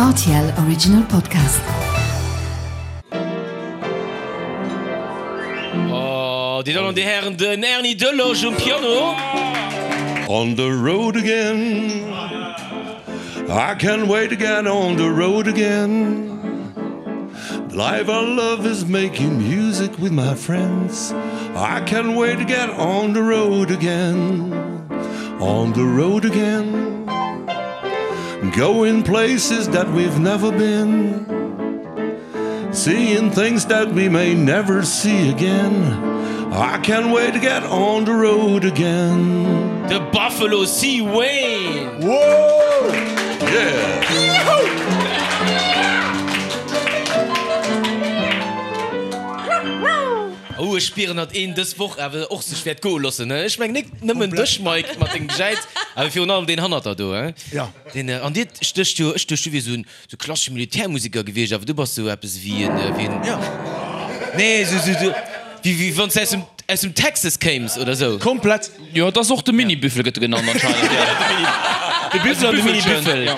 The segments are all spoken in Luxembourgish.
Rtl Original Podcast. Oh, déi Dammen an déi Hären, den Erny Delosch um Piano. On the road again I can't wait to get on the road again The life I love is making music with my friends I can't wait to get on the road again On the road again Going places that we've never been Seeing things that we may never see again I can't wait to get on the road again De Buffalo C. Wayne! Whoa! Yeah! Oh, ech spieren, datt een dës Woch awer och sech wäert goe loossen. Ech mengen nik nëmmen dech, Mike, mat dengem Gejäiz, awer virun allem deen hannert der do. Ja. Deen, an dir stécht jo, ech duecht, du wiers esou en Sou klassesche Militärmusiker gewiescht, awer du bass sou eppes wéi en, wéi en, Ja. nee, sou, sou, sou, wéi, wéi wann s de aus dem, aus dem Texas kéims oder sou. Komplett. Jo, et ass och de Mini-Büffel gëtt e genannt anscheinend, jo. De Büffel an de Mini-Büffel. Ja,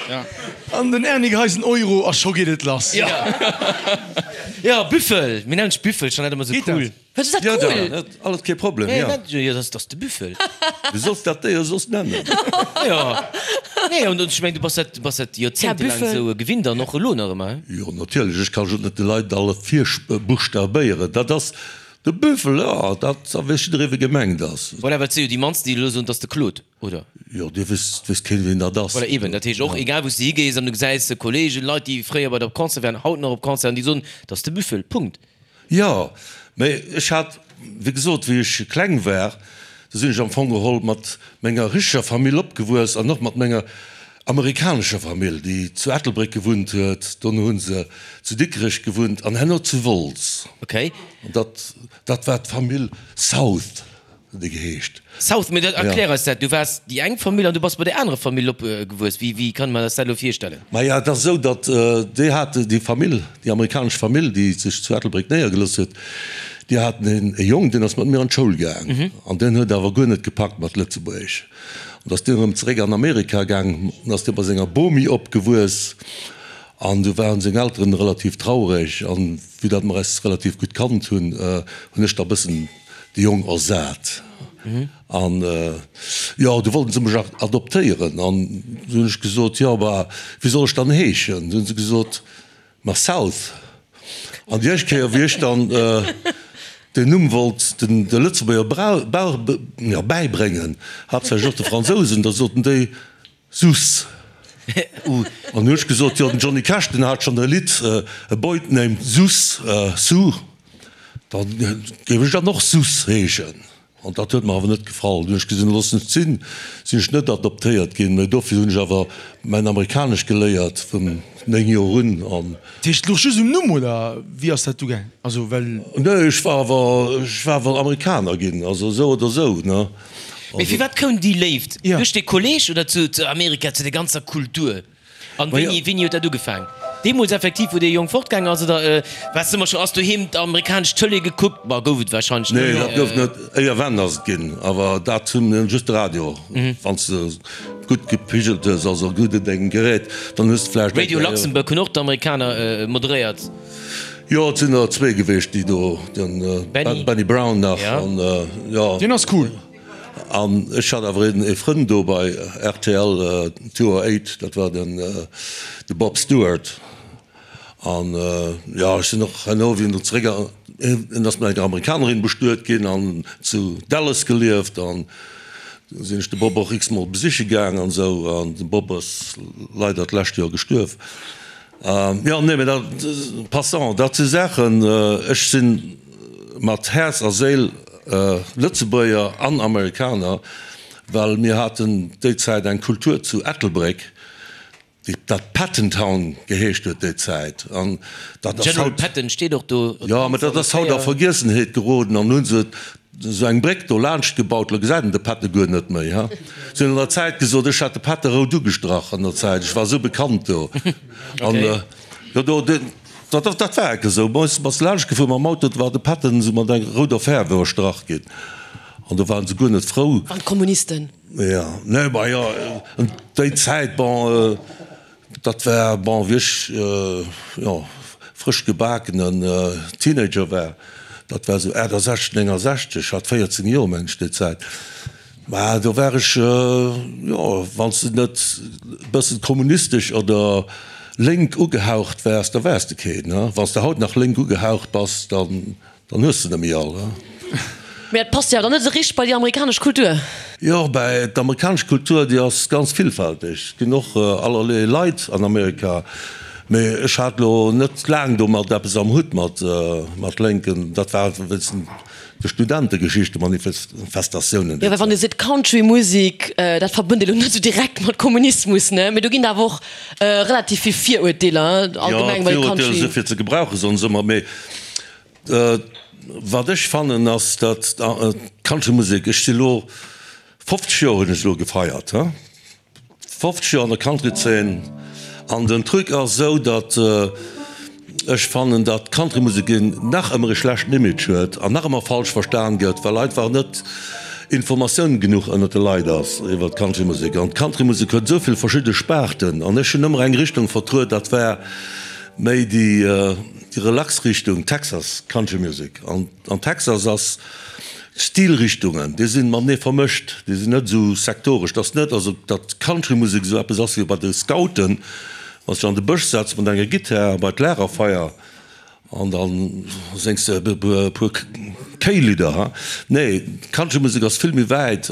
ja. An den Erny geheist en Euro a scho geet et lass. Ja. Ja, Büffel, mir nennen dech Büffel, ech fannen dat ëmmer sou Geet dat? cool. Wat ass dat Ja, cool? dat alles kee Problem, Nee, ja. dat, jo, dat ass de Büffel. Du solls dat Déier soss nennen. Jo. Nee, an ech mengen, du bass dat, du bass dat joerzéngtelaang Büffel. esou gewinnt an och elo nach ëmmer, he? Jo, natierlech. Ech ka jo net de Leit alles virbuchstabéieren. Dat ass de Büffel, jo, dat da weess jidderee, wie gemengt ass. Voilà, well et si jo déi mannsten, déi elo soen, 't ass de Claude, oder? Jo, dir wësst, weess keen, wien dat ass. Voilà, eben. Dat heescht och, egal wou s de higees an du gesäis Kollegen, Leit, déi fréier bei der op Concert waren, haut nach op Concerten, déi soen, 't ass de Büffel. Punkt. Jo, mä ech hat, wéi gesot, wéi ech kleng war, do sinn ech am Fong geholl mat menger richteger Famill opgewuess an och mat menger amerikanescher Famill, déi zu Ettelbréck gewunnt huet. Dono hu se zu Dikrech gewunnt an herno zu Wolz. Okay. An dat, dat war d'Famill South. Huet e geheescht. South, mee erklär eis dat. Du waars déi eng Famill an du bass bei där anerer Famill opgewuess. Wéi, wéi kann mer eis dat elo virstellen? Maja, et ass esou, datt déi hat, déi Famill, déi amerikanesch Famill, déi sech zu Ettelbréck néiergelooss huet, déi haten een e Jong, deen ass mat mir an d'Schoul gaang an deen huet awer guer net gepackt mat Lëtzebuergesch. An da ass deen erëm zeréck an Amerika gaang an ass dee bei senger Bomi opgewuess an du waren seng Elteren relativ traureg an vue datt mer eis relativ gutt kannt hunn, hunn ech da bëssen de Jong ersat. An jo, du wollten se mech adoptéieren. An du hunn ech gesot, jo, bah, wéi soll ech dann heeschen? Du hunn se gesot, ma South. An déi éischt Kéier, wéi ech dann den Numm wollt den de Lëtzebuerger bäibréngen, haaptsächlech och de Fransousen, da soten déi, Sus. An hu ech gesot, jo den Johnny Cash den hat schonn e Lidd A Boy Named Sus, Sue, da géif ech dann och Sus heeschen. An dat huet mer awer net gefall. Dunn hu ech gesinn, loossen et sinn, sinn ech net adoptéiert ginn, mä dofir hunn ech awer mäin Amerikanesch geléiert vun 9 Joer un. An. Dat heescht, et louch just um Numm, oder wéi ass dat du gaang? Also well. Nee, ech war awer, ech war awer Amerikaner ginn, also esou oder esou, ne. Mee firwat koum déi Léift? Ja. Duerch de Kolleg oder zu Amerika, zu der ganzer Kultur? An wéini, wéini huet dat ugefaang? Deemools effektiv, wou dee Jong fortgaang ass, oder waars de ëmmer scho, ass doheem d'amerikanesch Tëlee gekuckt? Bah, gouf et wahrscheinlech Nee, net. dat gouf net. Éierwenn ass et ginn, awer dat hunn just de Radio. Wann s de gutt gepigelt hues, also gutt un dengem Gerät, dann hues de vläicht eng Radio Kéier. Luxembourg hunn och d'Amerikaner moderéiert. Jo, et sinn der zwee gewiescht, déi do, den Benny. Benny Brown nach Ja. an jo. Deen ass cool. An ech hat awer een ee Frënd do bei rtl 208, dat war den de Bob Stewart. An jo, ech sinn och herno, wéi en do zeréck, en ass mat enger Amerikanerin bestuet ginn an zu Dallas gelieft an do sinn ech de Bob och x-mol besiche gaang an esou. An de Bob ass leider d'lescht Joer gestuerf. Jo, nee, mee dat, passant, dat si Saachen, ech si mat Häerz a Séil Lëtzebuerger an Amerikaner, well mir haten déi Zäit eng Kultur zu Ettelbréck, déi dat Patton Town geheescht huet déi Zäit, an dat ass General haut. Patton steet och do. Jo, mä dat ass haut a Vergiessenheet geroden an hu se esou eng Bréck do laanscht gebaut, lo gesäit een de Patton guer net méi, ha. Se hunn an der Zäit gesot, ech hätt de Patton rout ugestrach an der Zäit, ech war esou bekannt do. An jo, do, dat, dat war enke esou. Bei eis bass laanscht gefuer mam Auto, do war de Patton esou mat enger rouder Fäerf iwwerstrach ginn an do waren se guer net frou. Waren d'Kommunisten. Jo, nee, ma jo, déi Zäit, bon. Dat war, bon, wéi ech, jo, frësch gebakenen Teenager war, dat war esou 68, 69, ech hat 14 Joer, meng ech, déi Zäit. Mä do war ech, jo, wann s de net e bëssen kommunistesch oder lénk ugehaucht waars, da waars de keen. Wann s de haut nach lénk ugehaucht bass, dann Dann hues de nemmi all, he? Mee dat passt jo awer dann net esou richteg bei déi amerikanesch Kultur. Jo, bäi d'amerikanesch Kultur, déi ass ganz villfälteg. Et ginn och allerlee Leit an Amerika. Mee ech hat lo net laang domat eppes am Hutt mat mat Lénken. Dat war wéinst de Studentegeschichten, Manifestatiounen. Jo, well wann ee seet Country-Musek, dat verbënnt ee lo net esou direkt mat Kommunismus, ne? Mee do ginn et awer och relativ vill Virurteeler allgemeng bei Jo, Country. Virurteeler si fir ze gebrauchen, soen se ëmmer. Mee Wat ech fannen ass, datt d'Countrymusek, ech si lo 50 Joer hunn ech elo gefeiert, he, 50 Joer an der Countryzeen, an den Truc ass esou, datt ech fannen, datt d'Countrymusek nach ëmmer e schlechten Image huet an nach ëmmer falsch verstan gëtt, well einfach net Informatioun genuch ënnert de Leit ass iwwer d'Countrymusek. An d'Countrymusek huet esou vill verschidde Sparten an ech hunn ëmmer eng Richtung vertruet, dat war Méi déi relax Richtung Texas Country Music. An an Texas ass d'Stilrichtungen, déi sinn matenee vermëscht, déi sinn net esou sektoresch. Et ass net also datt Country Musek esou eppes ass wéi bei de Scouten, wann s de an de Bësch setz mat enger Gittär a bei d'Lagerfeier an da séngs de e puer Kéilidder. Ha nee, Country Musek ass vill méi wäit.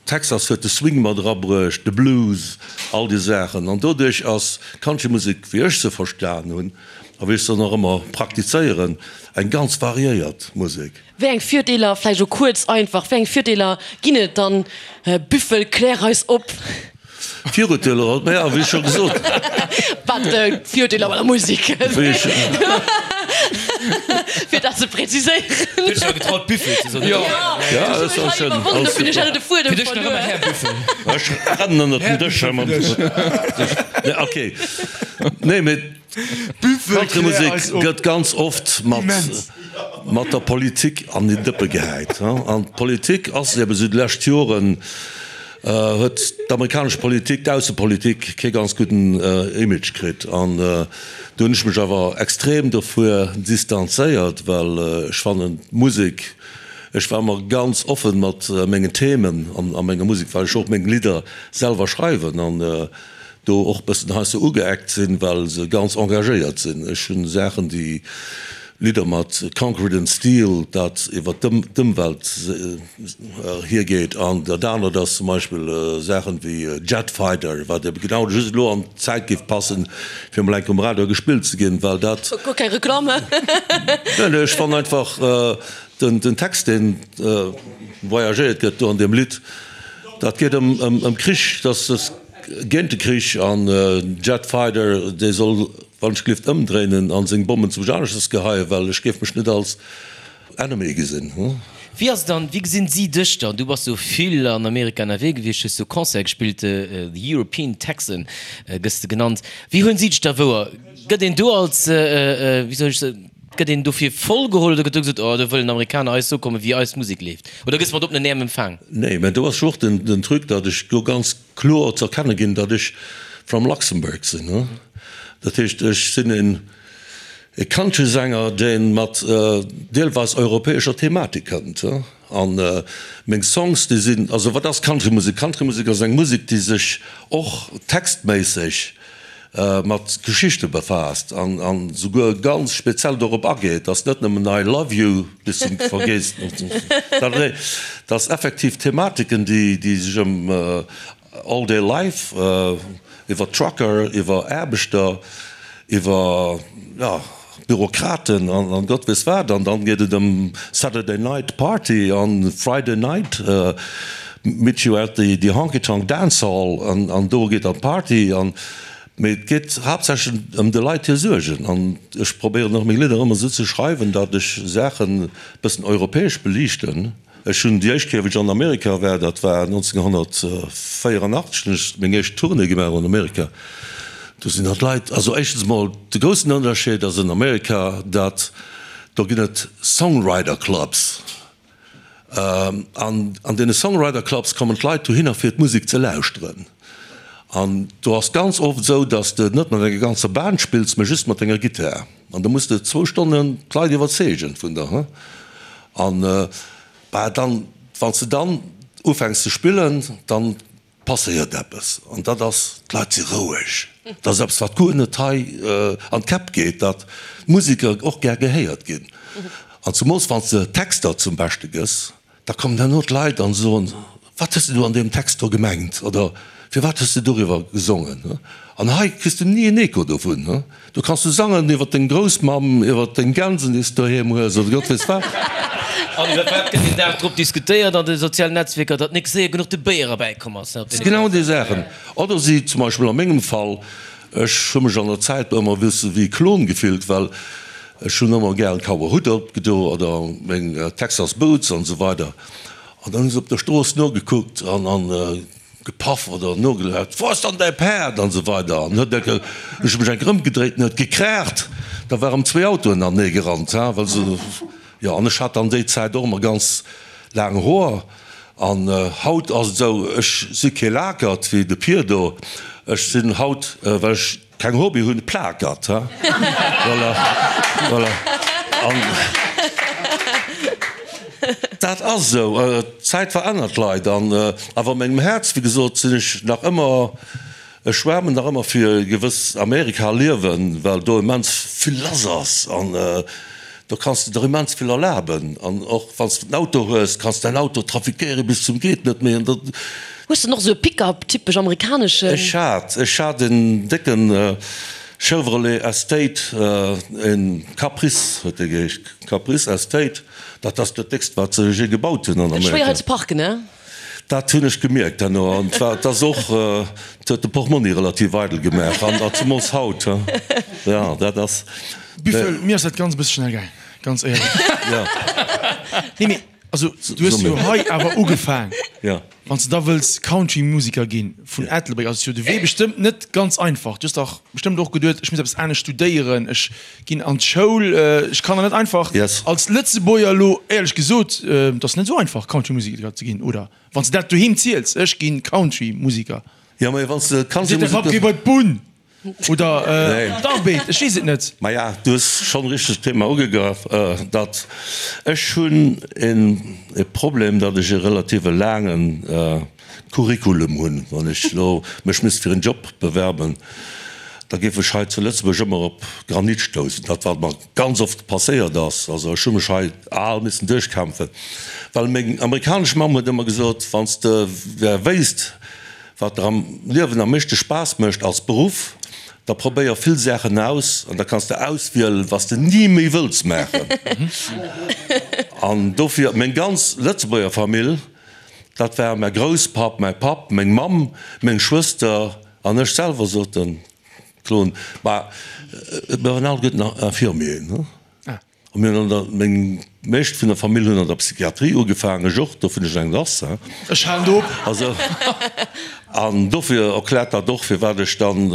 Texas huet de Swing mat erabruecht, de Blues, all déi Saachen. An doduerch ass d'Countrymusek, wéi ech se verstan hunn a wéi ech se nach ëmmer praktizéieren, eng ganz variéiert Musek. Wéi eng Virdeeler, vläicht elo kuerz einfach, wéi eng Virdeeler ginn et dann? Büffel, klär eis op! Virurteeler, ma ja, wéi scho gesot. Wat Virurteeler bei der Musek? Fir dat ze präziséieren. Du hues dech awer getraut Büffel ze soen. Jo, Ja, dat ass schön. Iwwerwonnen, do hunn ech elo de Fuedem Fir dech nach ëmmer verluer. Här Büffel. Ech rennen ënnert den Dësch hei mam. Nee, okay. Nee, mee d'Countrymusek gëtt ganz oft mat mat der Politik an den Dëppe gehäit. An d'Politik ass eben esou déi lescht Joren huet d'amerikanesch Politik, d'Aussepolitik kee ganz gudden Image kritt. An do hunn ech mech awer extrem dovuer distanzéiert, well ech fannen d'Musek, ech war ëmmer ganz offen mat mengen Themen an a menger Musek, well ech och meng Lidder selwer schreiwen an do och bëssen heiansdo ugeeckt sinn, well se ganz engagéiert sinn. Ech hunn Saachen, déi Lidder mat Concrete and Steel, dat iwwer d'Ëmwelt hiergeet, an dat anert ass zum Beispill Saachen wéi Jet Fighter, wat ebe genau just elo an d'Zäit géif passen, fir emol eng Kéier um Radio gespillt ze ginn, well dat. Guer keng Reklamm, he? Nee, nee, ech fannen einfach den Text, deen voyagéiert gëtt do an deem Lidd, dat geet ëm Krich, dass es géint de Krich, an Jet Fighter, dee soll Wann ech glift ëmdréinen an seng Bommen zum Janesches geheien, well ech géif mech net als Enemy gesinn. Wéi ass et dann, wéi gesinn si dech dann? Du bass jo vill an Amerika ënnerwee gewiescht, hues do Concerte gespillt, The European Texan gëss de genannt. Wéi huelen si dech da wouer? Gëtt een do als, wéi soll ech soen, gëtt een dofir voll geholl oder gëtt do gesot, oh do wëllen Amerikaner eis soe kommen, wéi eis Musek leeft? Oder gëss mat oppenen Äerm empfaang? Nee, mä do ass jo och den Truc, datt ech do ganz kloer ze erkenne ginn, datt ech from Luxembourg sinn. Dat heescht, ech sinn een e Countrysänger, dee mat deelweis europäescher Thematik kënnt. A meng Songs, déi sinn, also wat ass Countrymusek? Countrymusek ass eng Musek, déi sech och textméisseg mat Geschichte befaasst an souguer ganz speziell dorop ageet, dass net nëmmen I love you bis zum Vergeesmech, dass effektiv Thematiken, déi sech ëm all day life, iwwer Trucker, iwwer Aarbechter, iwwer, jo, Bürokraten an Gott weess wat, an dann geet et ëm Saturday Night Party an Friday Night meet you at the Honky Tonk Dance Hall an do geet dann d'Party an. Mee et geet haaptsächlech ëm de Leit hir Suergen an ech probéieren och meng Lidder ëmmer esou ze schreiwen, datt ech Saachen e bëssen europäesch beliichten. Ech hunn déi éischt Kéier, wéi ech an Amerika war, dat war 1984, hunn ech meng éischt Tournée gemaach an Amerika. Do sinn dann d'Leit, also éischtens emol, de groussen Ënnerscheed ass an Amerika, datt do ginn et Songwriter Clubs. An an deene Songwriter Clubs kommen d'Leit dohinner fir d'Musek ze lauschteren. An do ass ganz oft esou, dass de net mat enger ganzer Band spills, mä just mat denger Gittar. An da muss de zwou Stonnen d'Leit iwwerzeegen vun der, he. An, bah, dann, wann s de dann ufänks ze spillen, dann passéiert eppes. An dat ass, d'Leit si roueg. Dat ass eppes, wat guer net hei an d'Käpp geet, datt d'Museker och gär gehéiert ginn. An zemools wann s de Texter zum Beschte gëss. Da kommen herno d'Leit an soen, Wat hues de do an deem Text do gemengt? Oder Firwat hues de doriwwer gesongen? An hei kriss de ni en Echo dovun. Do kanns du sangen iwwer deng Groussmamm, iwwer deng Gänsen, déi s de doheem hues, oder Gott weess wat. An iwwer wat gëtt den Dag drop diskutéiert an de sozialen Netzwierker? Datt nik séier genuch de Béier erbäikomm ass. Genau déi Saachen. Oder si zum Beispill a mengem Fall, ech hu mech an der Zäit ëmmer e bësse wéi e Klon gefillt, well Ech hunn ëmmer gären Cowboyhutt opgedo oder meng Texas Boots an esou weider an dann hu se op der Strooss nogekuckt an an gepaff oder nogelaut, Wo ass dann däi Päerd? an esou weider an huet enke, ech hu mech enke rëmgedréit an huet gekraacht, da war erëm zwéi Autoen anenee gerannt, ha well se, jo an ech hat dann déi Zäit och ëmmer ganz laang Hoer an haut ass et esou, ech si kee Lakert wéi de Pir do, ech sinn haut, well ech. Keng Hobby hunn, Plakert, ha? Voilà, voilà. An dat ass esou, d'Zäit verännert d'Leit. An awer a mengem Häerz, wéi gesot, sinn ech nach ëmmer, ech schwäermen nach ëmmer fir e gewëss Amerika-Liewen, well do immens vill lass ass. An do kanns de der immens vill erlaben. An och wann s de en Auto hues, kanns de däin Auto trafiquéiere bis zum geet net méi. An dat. Hues de och esou e Pick-up, typesch amerikaneschen? Ech hat, ech hat en décken Chevrolet Estate, en Caprice huet dee geheescht, Caprice Estate, dat ass dat déckst wat se je gebaut hunn an Amerika. Schwéier hei ze parken, ne? Dat hunn ech gemierkt herno, an et ass och, et huet de Portmonni relativ eidel gemaach, an zemools haut, jo, dat ass. Büffel, mir ass dat ganz e bësse schnell gaang, ganz éierlech. Jo. Nee, mee also du hues jo hei awer ugefaang. Jo. Wann s de da wëlls Country-Musiker ginn vun Ettelbréck, ass jo de Wee bestëmmt net ganz einfach. Du hues dach bestëmmt och geduet, ech muss eppes anescht studéieren, ech ginn an d'Schoul, ech kann der net einfach als Lëtzebuerger elo, éierlech gesot, et ass net esou einfach Country-Musiker ze ginn, oder? Wann s de dat doheem ziels, ech ginn Country-Musiker. Jo, mä wann s de Seet de Papp, géi bei d'Bunn oder d'Arbed, ech weess et net. Maja, du hues schonn richteg d'Thema ugegraff, datt ech hunn e Problem, datt ech e relative laange Curriculum hunn. Wann ech elo mech misst fir en Job bewerben, da géif ech hei zu Lëtzebuerg ëmmer op Granit stoussen, dat wat mer ganz oft passéiert ass. Also ech hu mech hei al missen duerchkämpfen, well meng amerikanesch Mamm huet ëmmer gesot, wann s de wéisst, Wat der am Liewen am meeschte Spaass mécht als Beruff, da probéier vill Saachen aus an da kanns de auswielen, was de ni méi wëlls maachen. An dofir, meng ganz Lëtzebuerger Famill, dat war mäi Grousspapp, mäi Papp, meng Mamm, meng Schwëster an ech selwer, sot de Klon, ma mir waren alleguerten Infirmieren. A mir hunn an der, meng meescht vun der Famill hunn an der Psychiatrie ugefaangen, ech och, dofir hunn ech eng lass, hein. Ech halen do op. Also, an dofir erkläert dat och, firwat ech dann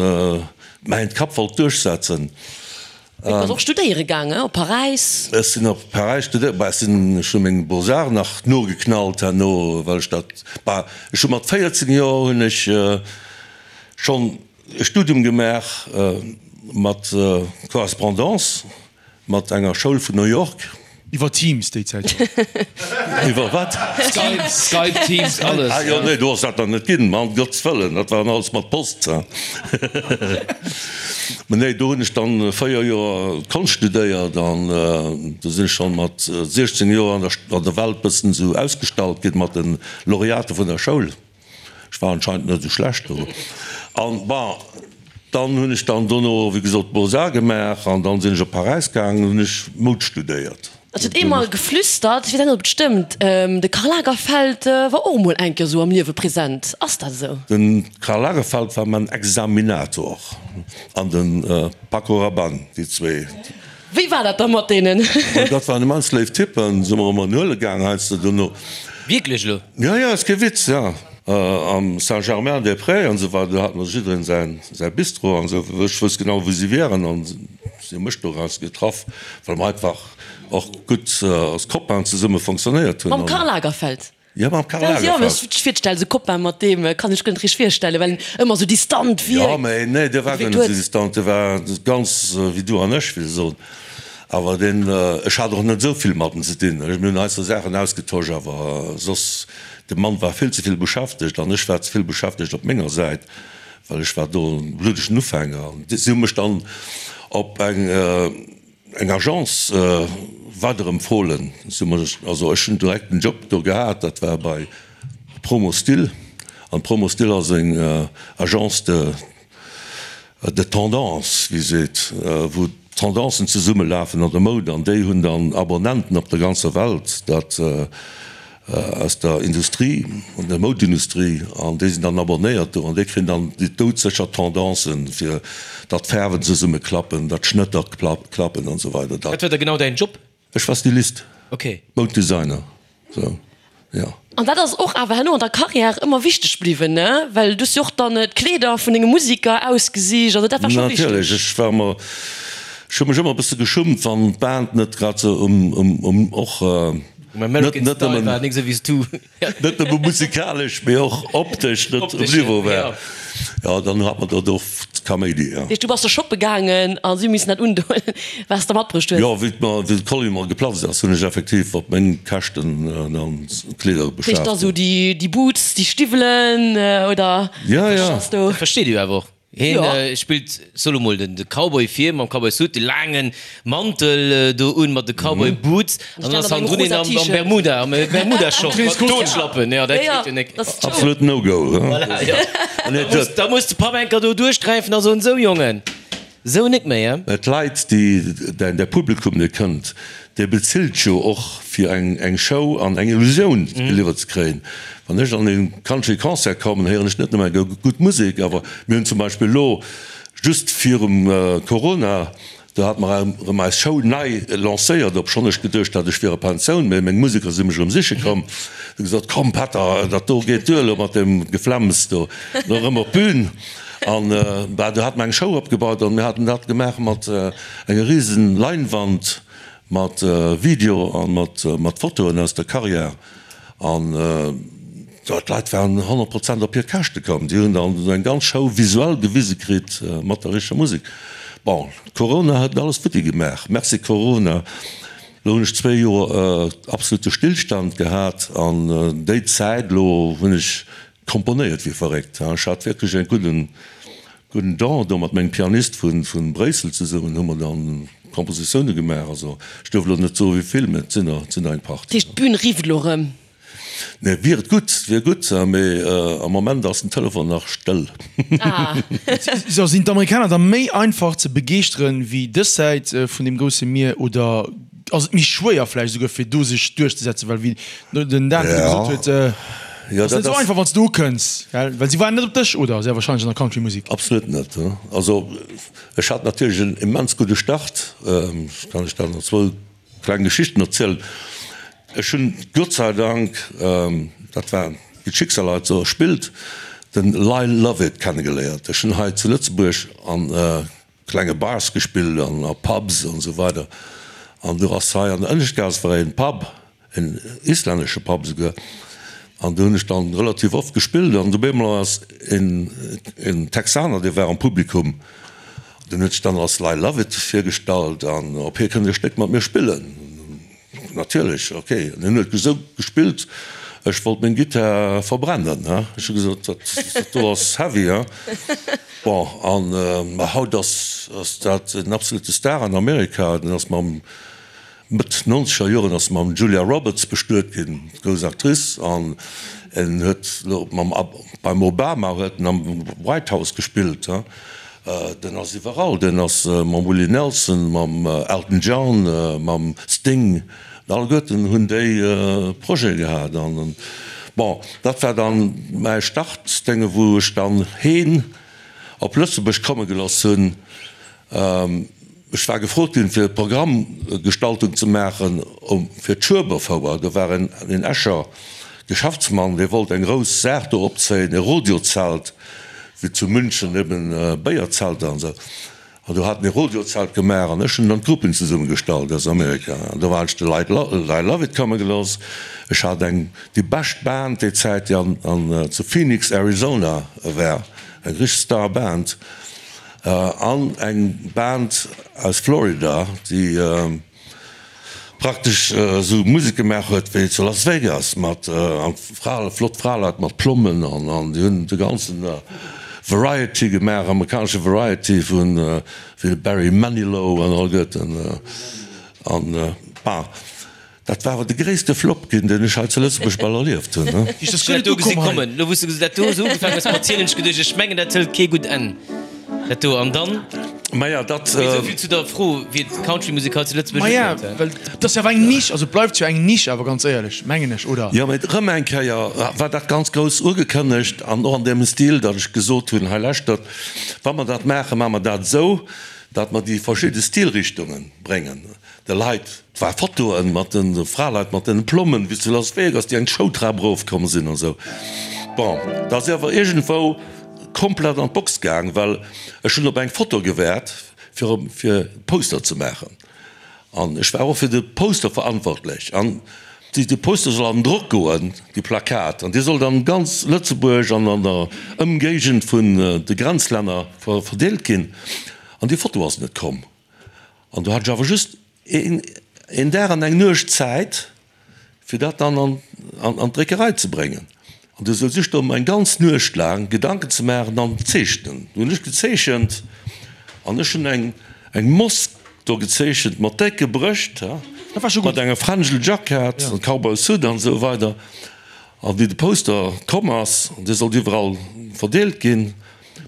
mäin Kapp wollt duerchsetzen. Du bass och studéiere gaangen, op Paräis? Ech sinn op Paräis studéieren, bah, ech sinn, ech hu meng Beaux-Arts nach nogeknallt herno, well ech dat, bah, ech hu mat 14 Joer hunn ech schonn e Studium gemaach mat Correspondance. Mat enger Schoul vun New York. Iwwer Teams déi Zäit schonn. Iwwer wat? Skype, Skype, Teams, alles. Ah jo, nee, do ass dat nach net ginn, ma ëm Gottes Wëllen, dat war alles mat Post. Mä nee, do hunn ech dann 4 Joer Konscht studéiert an do sinn ech schonn mat 16 Joer an der an der Welt bëssen esou ausgestallt ginn mat de Laureate vun der Schoul. Ech war anscheinend net esou schlecht do. An bon, dann hunn ech dann dono, wéi gesot, d'Beaux-Arts gemaach an dann sinn ech op Paräis gaangen, hunn ech Moud studéiert. Et huet ee mol geflüstert, ech weess net ob et stëmmt, de Karl Lagerfeld war och emol eng Kéier esou am Liewe present. Ass dat esou? De Karl Lagerfeld war mäin Examinator an de Paco Rabanne, déi zwee. Wéi war dat da mat deenen? Dat waren immens léif Typen, si mer ëmmer en huele gaang heiansdo dono. Wierklech elo? Jo, jo, ass kee Witz, jo. Am Saint-Germain-des-Prés an esou weider, do hat mer jiddereen säin, säi Bistro an esou. Ech wousst genau, wou si wieren an si hu mech doraus getraff, well mer einfach och gutt als Copainen zesumme fonctionnéiert hunn. Mam Karl Lagerfeld? Jo, mam Karl Lagerfeld. Jo, mee ech virstellen, esou Copain mat deem kann ech guer net richteg virstellen, well en ëmmer esou distant wierkt. Jo, mee nee, dee war guer net esou distant, dee war ganz wéi du an ech, wéi se soen. Awer deen, ech hat och net esou vill mat em ze dinn. Mir hunn eis sou Saachen ausgetosch, awer soss, de Mann war vill ze vill beschäftegt an ech war ze vill beschäftegt op menger Säit, well ech war do e bluddegen Ufänger. An si hu mech dann op eng. Eng Agence weiderempfohlen. Also ech hunn direkt en Job do gehat, dat war bei Promostil. An Promostil ass eng Agence de de tendance, wéi seet, wou d'Tendancen zesummelafen an der Moud. An déi hunn dann Abonnenten op der ganzer Welt, dat aus der Industrie, an der Moudindustrie, an déi sinn dann abonnéiert do an déi kréien dann déi doudsécher Tendancen, fir datt d'Faarwen zesumme klappen, datt d'Schnëtter klappen an esou weider. Wat war da genau däin Job? Ech war Stylist, Mouddesigner, sou, jo. An dat ass och awer herno an der Carrière ëmmer wichteg bliwwen, ne? Well du hues jo och dann d'Kleeder vun denge Musiker ausgesicht, also dat war scho wichteg. Natierlech, ech war ëmmer, ech hu mech ëmmer e bësse geschummt, wann d'Band net grad sou um, um, och. Um American Net Style nëmmen, war nik sou wéi s du. net nëmme musikalesch, mee och optesch net um Niveau war. Jo, dann hat mer dat oft Kaméidi, jo. Dat heescht, du bass da shoppe gaangen a si hu missen dat undoen, wat s de matbruecht hues? Jo, wéi d'mer, wéi de Kolli mer geplatzt ass, hunn ech effektiv op meng Käschten dann Kleeder Dat heescht beschaaft. da sou déi, déi Boots, déi Stiwwelen oder Ja, wat ja. ass do? Dat versteet ee jo awer och. Hien spillt, soe lo mol, den Cowboy vir mam Cowboy Suit, de laangen Mantel do un mat de Cowboy Boots an dann ass hannendrun een am Bermuda, am Bermuda Short mat Totschlappen. Jo, dat geet jo nek. Absolut no go. Voilà, jo. Da muss de Papp enker do duerchgräifen a soen, Sou Jongen, sou nek méi, he? Mä d'Leit, déi, däin Publikum, dee kënnt, dee bezilt jo och fir eng Show an eng Illusioun geliwwert ze kréien. Wann ech an e Country Concert kommen, héieren ech net nëmme eng gutt Musek, awer mir hunn zum Beispill elo just virum Corona, do hate mer erëm eis Show nei lancéiert, obschonn ech geduecht hat, ech wier a Pensioun, mä meng Museker si mech erëm siche komm, hu gesot, komm Pätter, dat do geet duer elo mat deem Geflemms do, elo erëm op d'Bün. An bah, do hate mer eng Show opgebaut an mir haten dat gemaach mat enger risen Leinwand mat Video a mat Fotoen aus der Carrière. An d'Leit waren 100 Prozent op hir Käschte komm. Déi hunn dann esou eng ganz Show visuell gewise kritt mat der richteger Musek. Bon, Corona huet alles futti gemaach. Merci Corona. Elo hunn ech zwéi Joer absolute Stillstand gehat an déi Zäit elo hunn ech komponéiert wéi verréckt. Ech hat wierklech e gudden gudden Don do mat mengem Pianist vu Bréissel zesummen hu mer dann Kompositioune gemaach. Also ech duerf elo net soe wéi vill, mä et sinn der, et sinn der eng Partie. Dat heescht d'Bün rifft elo erëm? Nee, wier et gutt, wier gutt, mee am Moment ass den Telefon nach stëll. Ah. So, sinn d'Amerikaner da méi einfach ze begeeschteren wéi dës Säit vun deem grousse Mier oder ass et méi schwéier vläicht esouguer fir do sech duerchzesetzen, well wéi den Dan virdru gesot huet, ass net esou einfach wann s de ukënns, gell, well si waarden net op dech, oder sehr wahrscheinlech an der Country-Musek. Absolut net. Also ech hat natierlech en immens gudde Start, ech kann lech dann zwou kleng Geschichten erzielen. Ech hunn Gott sei Dank, dat war wéi d'Schicksal halt esou spillt, den Lyle Lovett kennegeléiert. Ech hunn hei zu Lëtzebuerg an klenge Bars gespillt an a Pubs an esou weider an do ass hei an der Ënneschtgaass war een Pub, en islännesche Pub esouguer, an do hunn ech dann relativ oft gespillt an op eemol ass een een Texaner, dee war am Publikum, deen huet sech dann als Lyle Lovett virgestallt an ob hie kënnt e Stéck mat mir spillen. Natierlech, ok. An hien huet esou gespillt, ech wollt meng Gittar verbrennen, he. Ech hu gesot, dat do ass heavy, he. Bon, an ma haut ass ass dat en absolute Star an Amerika. Den ass mam, Mëtt nonzeger Joren ass mam Julia Roberts bestuet ginn, grouss Actrice, an en huet elo mam, beim Obama huet en am White House gespillt, he. Den ass iwwerall, den ass mam Willie Nelson, mam Elton John, mam Sting, alleguerten hunn déi Projete gehat. An bon, dat war dann mäi Startdénge wou ech dann heen op Lëtzebuerg komme geloss hunn. Ech war gefrot ginn fir Programmgestaltung ze maachen fir d'Schueberfouer. Do war en Escher Geschäftsmann, dee wollt eng grouss Saach do opzéien, e Rodeozelt, wéi zu München eben Béierzelter an esou. An do hat mir Rodiozelt gemaach an ech hunn dann d'Gruppen zesummegestallt aus Amerika. An do hat ech de Lyle Lovett komme gelooss. Ech hat eng, déi bescht Band déi Zäit, déi an, an zu Phoenix, Arizona war, eng richteg Star Band. An eng Band aus Florida, déi praktesch esou Musek gemaach huet wéi zu Las Vegas mat Fra, flott Fraleit mat Plommen an an déi hunn de ganzen Variety gemaach, amerikanesche Variety vun wéi de Barry Manilow an all Goeten an bah. Dat war awer de gréisste Flop ginn, deen ech hei zu Lëtzebuerg bal erlieft hunn. Ech hunn dat do gesi kommen. Lo wou s de dat do esou ugefaangen hues mat zielen, hunn ech geduecht, ech mengen dat hëlt kee gutt Enn, dat do. An dann? Maja, dat. Mee esou vill zu der Fro, wéi d'Countrymusek hei zu Lëtzebuerg Maja, ukënnt. well et ass jo awer eng Nisch, also et bleift jo eng Nisch awer, ganz éierlech, mengen ech, oder? Jo, mee erëm eng Kéier war dat ganz grouss ugekënnegt an och an deem Stil, datt ech gesot hunn, hei lauschtert, wa mer dat maachen, maache mer dat esou, datt mer déi verschidde Stilrichtunge bréngen. De Leit, et war Fotoen mat den Fraleit mat den Plommen wéi zu Las Vegas, déi eng Showtrap erof komm sinn an esou. Bon, da si awer iergendwou komplett an d'Box gaang, well ech hunn op eng Foto gewaart fir fir Poster ze maachen an ech war och fir de Poster verantwortlech an déi de Poster soll an den Drock goen, déi Plakat, an déi sollt an ganz Lëtzebuerg an an der Ëmgéigend vun de Grenzlänner verdeelt ginn an déi Foto ass net komm. An do hat ech awer just een Dag an eng Nuecht Zäit, fir dat dann an d'Dréckerei ze bréngen. An du souz ech do mer eng ganz Nuecht laang Gedanken ze maachen an zeechnen. Du hunn ech gezeechent an ech hunn eng Mosk do gezeechent mat décke Brëscht, mat enger Frangel Jackett an Cowboy Suit an esou weider. An wéi de Poster komm ass, dee sollt iwwerall verdeelt ginn,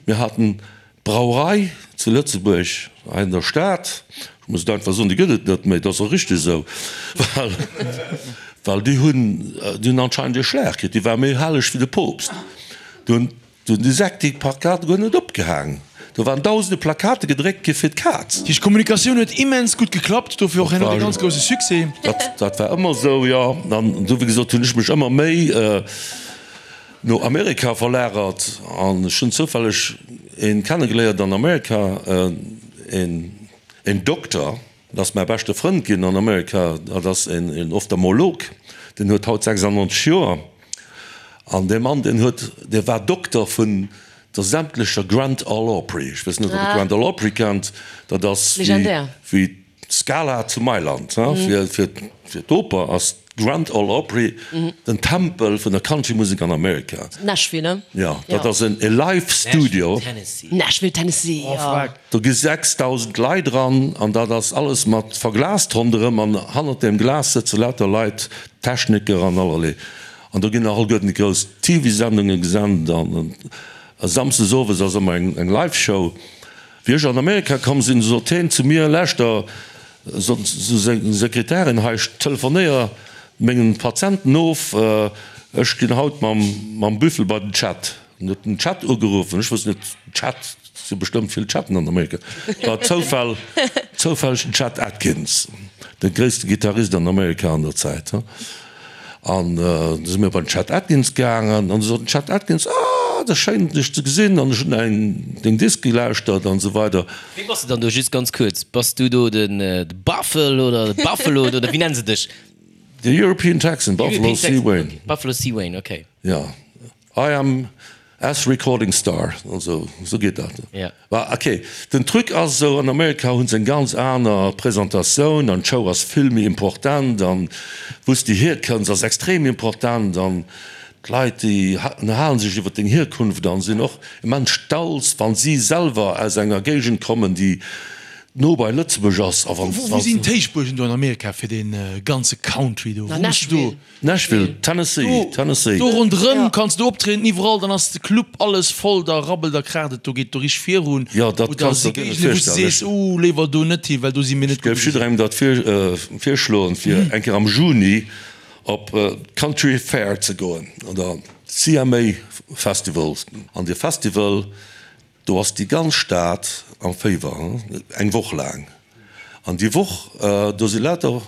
mir haten D'Brauerei zu Lëtzebuerg, hei an der Stad, ech muss et einfach soen, déi gëtt et net méi, dat ass och richteg esou, well, well déi hunn, déi hunn anscheinend ee Schlag kritt, déi war méi helleg wéi de Poopst. Do hunn, do hunn déi Säck déi Plakate guer net opgehaang. Do waren dausende Plakate gedréckt gi fir d'Kaz. Déi Kommunikatioun huet immens gutt geklappt, dofir och herno dee ganz grousse Succès. Dat, dat war ëmmer esou, jo. An du, wéi gesot, hunn ech mech ëmmer méi. No Amerika verlagert an ech hunn zoufälleg een kennegeléiert an Amerika, een een Dokter, dat ass mäi beschte Frënd ginn an Amerika, dat ass een een Ophtalmolog, deen huet haut 96 Joer an dee Mann deen huet, dee war Dokter vun der sämtlecher Grand Ole Opry. Ech weess net ob der Grand Ole Opry kennt, dat ass wéi wéi D'Scala zu Mailand, fir d'Oper ass d'Grand Ole Opry den Tempel vun der Countrymusek an Amerika. Nashville, ne? Jo, dat ass e Live Studio. Nashville, Tennessee, jo. Do gi 6.000 Leit eran an dat ass alles mat verglast ronderëm an hannert deem Glas sëtze lauter Leit, Techniker an allerlee. An do ginn nach alleguerten déi grouss TV-Sendunge gesent an samsdes owes ass ëmmer eng Live Show. Wéi ech an Amerika komm sinn, sot heen zu mir, Lauschter, sot seng Sekretärin, hei, ech telefonéier mengen Patienten of, ech ginn haut mam Büffel bei den Chet. En huet den Chet ugeruffen, ech wosst net, Chet, et si bestëmmt vill Chatten an Amerika, war Zoufall, zoufälleg den Chet Atkins, de gréisste Gittarist an Amerika an der Zäit. An du si mir bei den Chet Atkins gaangen an du sot den Chet Atkins, Ah, et ass schéin dech ze gesinn an ech hunn eng deng Disk gelauschtert an esou weider. Wéi bass de dann do, just ganz kuerz, bass du do den Buffel oder de Buffalo oder wéi nennen se dech? The European Texan, Buffalo C. Wayne. Buffalo C. Wayne, okay. Jo. I am S recording star, also esou geet dat. Ja. Bah ok, den Truc ass esou, an Amerika hunn se eng ganz aner Presentatioun an d'Show ass vill méi important an wou s de hierkënns ass extrem important an d'Leit déi ënnerhalen sech iwwer deng Hierkunft an sinn och immens stolz wann si selwer aus enger Géigend kommen déi no bei Lëtzebuerg ass a wann. Wou sinn d'Héichbuergen do an Amerika fir dee ganze Country do? Wou muss du do? Nashville, Tennessee, Tennessee. Do ronderëm kanns du optrieden, iwwerall, dann ass de Club alles voll, da rabbelt a kraacht et, do geet do richteg virun. Jo, dat Oder kanns si de dir net Géigende wou s du virstellen. sees, uh, léiwer do net hi, well do si mir net Ech géif gutt. jidderengem dat virschloen, fir eng Kéier am Juni op d'Country Fair ze goen oder CMA Festival. An dee Festival, Do ass déi ganz Stad am Féiwer, eng Woch laang. An déi Woch, do si lauter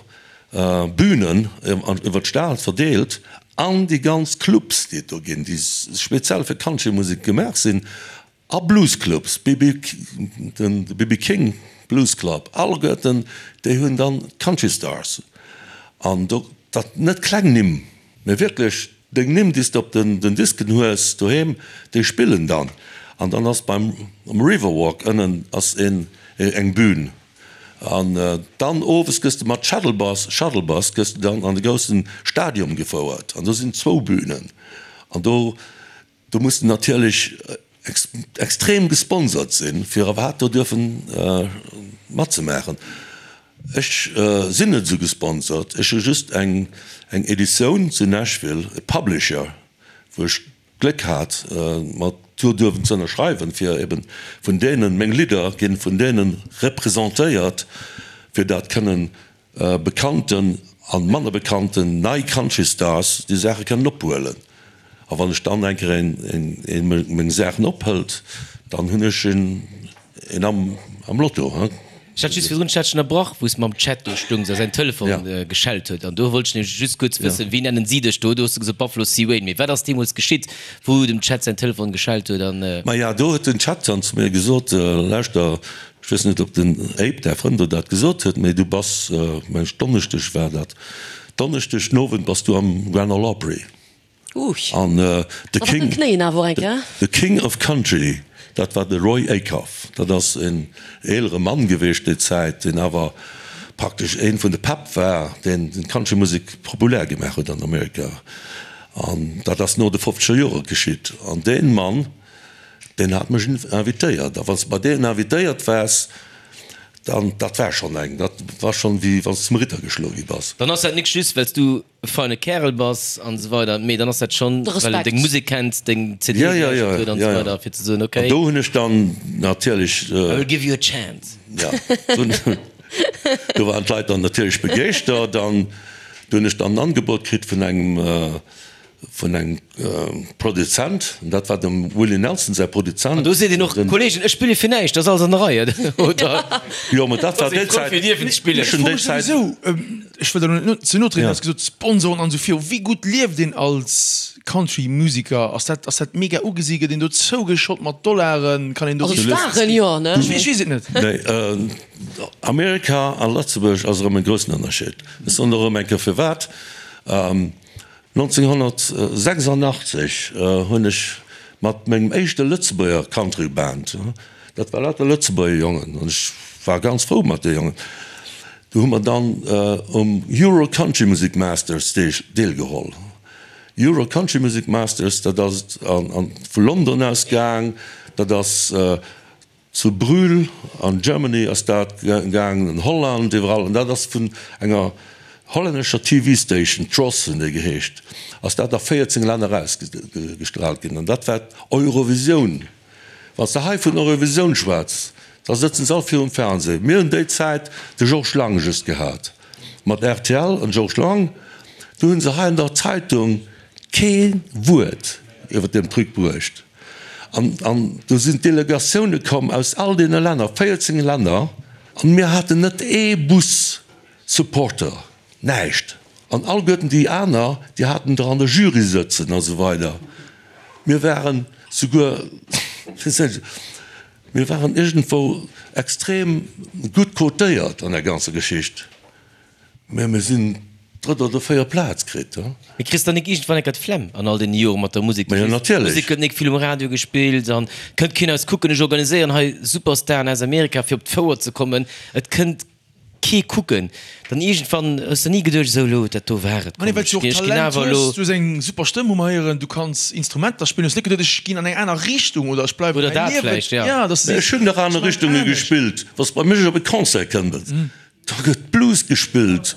Bünen iwwer d'Stad verdeelt an déi ganz Clubs, déi et do ginn, déi speziell fir Countrymusek gemaach sinn. A Bluesclubs, BB, den BB King Blues Club, alleguerten déi hunn dann d'Country Stars. An do, dat net kleng Nimm, mä wierklech deng Nimm, déi s de op den Disken hues doheem, déi spillen dann. An dann ass beim um Riverwalk ënnen ass een eng Bühn. An dann owes gëss de mat Shuttle Bus, Shuttle Bus, gëss de dann an de groussen Stadium gefouert. An do sinn zwou Bühnen. An do Do muss de natierlech extrem gesponsert sinn, fir iwwerhaapt do duerfen matzemaachen. Ech sinn net esou gesponsert, ech hu just eng Editioun zu Nashville, e Publisher, wou ech d'Gléck hat, mat do duerfen ze ënnerschreiwen, fir eben vun deenen, meng Lidder ginn vun deene representéiert, fir dat kënnen bekannten an manner bekannten nei Country Stars déi Saache kënnen ophuelen. A wann ech dann eng Kéier een meng Saachen ophëlt, dann hunn ech een am Lotto. Ech hat just virdrun, ech hat dech ënnerbrach, wou s de mam Chat do stungs a säin Telefon geschellt huet. An do wollt ech nämlech just kuerz wëssen, wéi nennen si dech do? Do hues de gesot Buffalo C. Wayne. Mee wat ass deemools geschitt, wou dem Chet säin Telefon geschellt huet an. Maja, do huet den Chet dann zu mir gesot, Lauschter, Ech weess net, ob den Abe, däi Frënd, der dat gesot huet, mee du bass, meng ech, Donneschdeg war dat, Donneschdeg den Owend bass du am Grand Ole Opry. An de King, de King of Country, dat war de Roy Acuff. Dat ass en eelere Mann geweecht déi Zäit, deen awer praktesch ee vun de Päpp war, deen d'Countrymusek populär gemaach huet an Amerika. An dat ass no de fofzeger Jore geschitt. An dee Mann, Deen hat mech invitéiert. A wann s de bei deenen invitéiert waars, dann, dat war schonn eng, dat war schonn wéi wann s de zum Ritter geschloe gi bass. Dann ass dat nik just, well s du e feine Kärel bass an esou weider, mee dann ass dat schonn, well en deng Musek kennt, deng CD gelauschtert huet an esou weider, fir ze soen, okay. An do hunn ech dann natierlech. I will give you a chance. Jo, do waren d'Leit dann natierlech begeeschtert. An do hunn ech dann en Angebot kritt vun engem. Vun engem Produzent, an dat war dem Willie Nelson säi Produzent. An do seet een och, Kollegen, ech spille fir näischt, dat ass alles an der Rei, oder? Jo, mä dat war déi Zäit, ech hunn déi Zäit. Ech wëll der elo net ze no trieden, du has gesot Sponsoren an esou viru. Wéi gutt lieft een als Country-Musiker? Ass dat, ass dat mega ugesi? Gëtt een do zougeschott mat Dollaren? Kann een do. Also Staren, jo, ne? Ech weess et net. Nee, Amerika a Lëtzebuerg ass erëm e groussen Ënnerscheed. Ech soen der erëm eng Kéier firwat. 1986 hunn ech mat mengem éischte Lëtzebuerger Country Band, dat war lauter Lëtzebuerger Jongen, an ech war ganz frou mat de Jongen, do hu mer dann um Euro Country Music Masters deelgeholl. Euro Country Music Masters, dat ass vu London aus gaang, dat ass Zu Brühl an Germany ass dat gaangen, an Holland, iwwerall. An dat ass vun enger hollännescher TV Station, Tros hunn déi geheescht, ass dat a 14 Länner erausgestraalt ginn. An dat war d'Eurovisioun. Wann s de hei vun Eurovisioun schwätz, da sëtzen se all virum Fernseh. Mir hunn déi Zäit de Georges Lang just gehat, mat rtl an Georges Lang. Do hunn se hei an der Zeitung kee Wuert iwwer deem Truc bruecht. An, an do sinn d'Delegatioune komm aus all deene Länner, 14 Länner, an mir haten net ee Bus Supporter, näischt. An alleguerten déi aner, déi haten der an der Jury sëtzen a sou weider. Mir waren souguer, mir waren iergendwou extrem gutt cotéiert an der ganzer Geschicht. Mä mir sinn drëtt oder véiert Plaz kritt. Mee kriss dann nik iergendwann enker d'Flemm an all deene Jore mat der Musek? Ma jo, natierlech. D'Musek gëtt nik vill um Radio gespillt an kënnt keen eis kucken. Ech organiséieren hei Superstaren aus Amerika fir op d'Fouer ze kommen. Et kënnt kee kucken. Dann iergendwann hues de ni geduecht, esou elo, dat do war et, komm, ech ginn awer elo. Du hues eng super Stëmm, hu mer héieren. Du kanns Instrumenter spillen. Hues net geduet, ech ginn an eng aner Richtung oder ech bleiwen Oder dat vläicht, ja. Ech hunn nach aner Richtunge gespillt. Wa s bei mech op e Concert kënnt, Do gëtt Blues gespillt.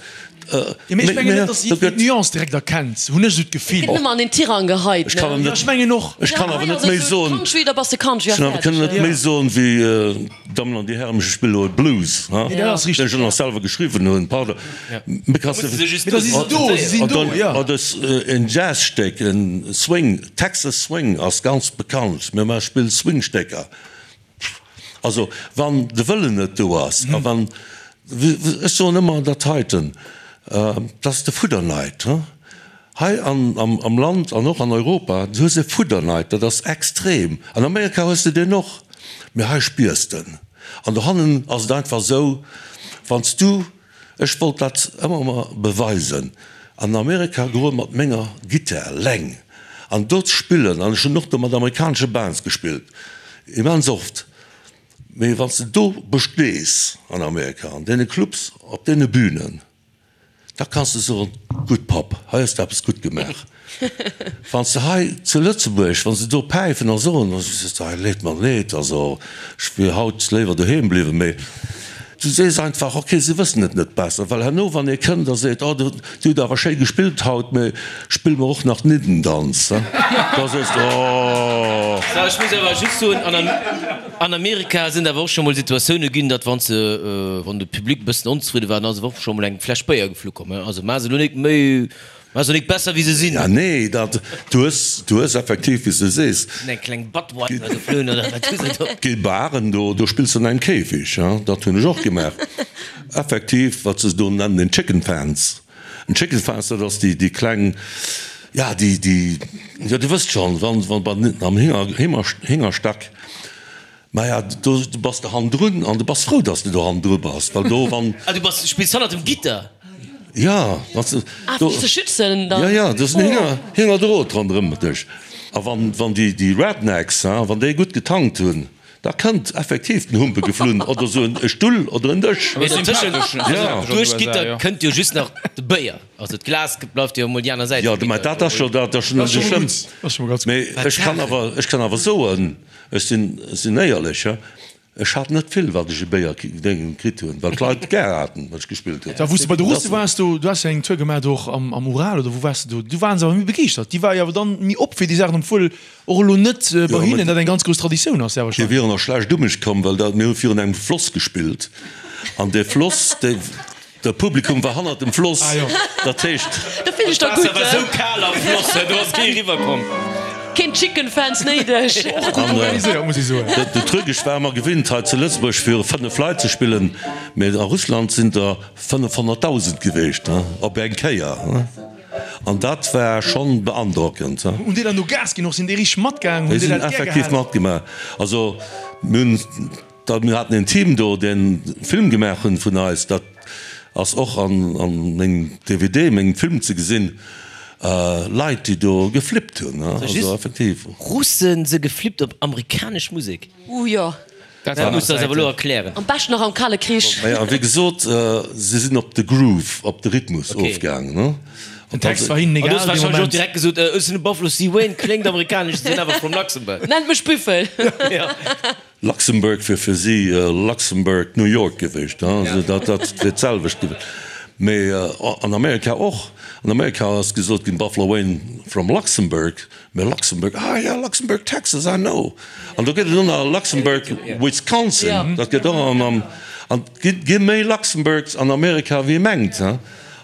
Jo, mee ech mengen net, dass jiddwereen d'Nuance direkt erkennt, hunn ech esou d'Gefill. Gëtt nëmmen an den Tirang geheit, ne? Jo, ech mengen och. Ech kann awer net méi soen. Country, da bass de Country a fäerdeg. Ech kann net méi soen wéi, Dammen an Dir Hären, ech spille elo e Blues, ha? Nee, dat ass richteg. Deen ech och nach selwer geschriwwen hunn, pardon. Mee kanns de. Mee da si se do, si sinn do, jo. Oder en Jazzstéck, en Swing, Texas Swing ass ganz bekannt. Mir maache spille Swingstécker. Also wann de Wëllen net do ass a wann, ech soen ëmmer dat heiten, dat ass de Fudderneid. Hei an am Land an och an Europa, du hues e Fudderneid, dat ass extrem. An Amerika hues de deen och, mee hei spiers de en. An dohannen ass et einfach esou, wann s du, ech wollt dat ëmmer emmer beweisen, an Amerika goe mat menger Gittar leng an do ze spillen, an ech hunn och do mat amerikanesche Bands gespillt, immens oft, mee wann s de do bestees an Amerika, an deene Clubs, op deene Bünen, Da kanns de soen, Gutt Papp, hei hues de eppes gutt gemaach. Wann s de hei zu Lëtzebuerg, wann se do päifen a soen, da sees de, Hei leet mer leed, also ech wier haut léiwer doheem bliwwen. Mee du sees einfach, Ok, se wëssen et net besser. Well herno, wann ee kënnt a seet, Oh, dir hutt awer schéi gespillt haut, mee spill mer och nach d'Niddendanz, da sees de, Oh. Ech muss awer just soen, An Amerika sinn et awer och scho mol Situatioune ginn, datt wann se, wann de Public e bëssen onzefridde war, dann ass awer och scho mol eng Fläsch Béier geflu komm. Also maache se elo nik méi, maache se nik besser wéi se sinn. Ja nee, dat, du hues, du hues effektiv, wéi s de sees. Sinn eng kleng Budweiser geflunn oder wat hu se do? Gi Baren do, do spills de an engem Käfig, ja, dat hunn ech och gemaach. Effektiv, wat se do nennen, den Chicken Fence. En Chicken Fence, dat ass déi, déi kleng, ja, déi, déi, jo, Dir wësst schonn, wann, wann bei am Hinger, Hinger, Hingerstack, maja, do bass de hannendrun an du bass frou, dass de do hannendru bass, well do, wann. Ah, du bass, spills hannert dem Gitter? Ja, wann s de Ah, fir dech ze schützen dann? Ja, ja, do ass en Hinger, Hingerdrot ronderëm dech. A wann, wann déi, déi Rednecks, ha, wann déi gutt getankt hunn, Da kënnt effektiv den Humpe geflunn oder sou e Stull oder en Dësch. Mee dotëschent, also duerch d'Gitter kënnt jo just nach de Béier, also d'Glas bleift jo emol déi aner Säit vum Gitter. Jo, mä dat ass jo, dat ass jo net esou schlëmm. Mee ech kann awer, ech kann awer soen, ech sinn, sinn éierlech, ech hat net vill, wat ech u Béier kritt hunn, well d'Leit gär haten, wat ech gespillt hunn. Da wou s de bei de Russe waars, do, du has jo eng Tour gemaach do och am, am Ural oder wou waars de do, do waren se awer méi begeeschtert, déi ware jo awer dann méi op fir déi Saachen, obwuel Och elo net bei hinnen dat eng ganz grouss Traditioun ass, sehr wahrscheinlech. Déi wieren och schlecht u mech komm, well dat, mir hu virun engem Floss gespillt an dee Floss, dee, de Publikum war hannert dem Floss, dat heescht. Do fillt ech der gutt. D'Waasser war sou kal am Floss, do ass kee eriwwer komm. Keen Chicken Fans néideg. Och gutt organiséiert, muss ech soen. De Truc, ech war ëmmer gewinnt hei zu Lëtzebuerg viru 5 Leit ze spillen, mee a Russland sinn der 500.000 geweecht op eng Kéier. An dat war schonn beandrockend. Hunn déi dann do Gas ginn och? Sinn déi richteg matgaang? Déi sinn effektiv matgemaach. Also mir hunn da, mir haten een Team do, deen e Film gemaach hunn vun eis. Dat ass och an an mengem DVD, mengem Film ze gesinn. Leit, déi do geflippt hunn, also effektiv. Russen se geflippt op amerikanesch Musek? Uh jo. Dat muss de eis awer elo erklären. Am beschten nach am Kale Krich. Maja, wéi gesot, se sinn op de Groove, op de Rhythmus ofgaangen, ne? Den Text war hinnen An du egal hues dee wahrscheinlech och Moment. direkt gesot, Ech sinn e Buffalo Steve Wayne, kléngt amerikanesch, sinn awer from Luxembourg. Nennt mech Büffel. Ja. Luxembourg wier fir si Luxembourg, New York gewiescht, ne? Also dat, dat wier d'selwecht gewiescht. Mee an Amerika och. An Amerika ass gesot ginn, Buffalo Wayne from Luxembourg. Mä Luxembourg, ah ja, Luxembourg, Texas, I know. An do gëtt et och nach Luxembourg, Wisconsin, dat gëtt och an, an, an et gi méi Luxembourgs an Amerika wéi ee mengt, he.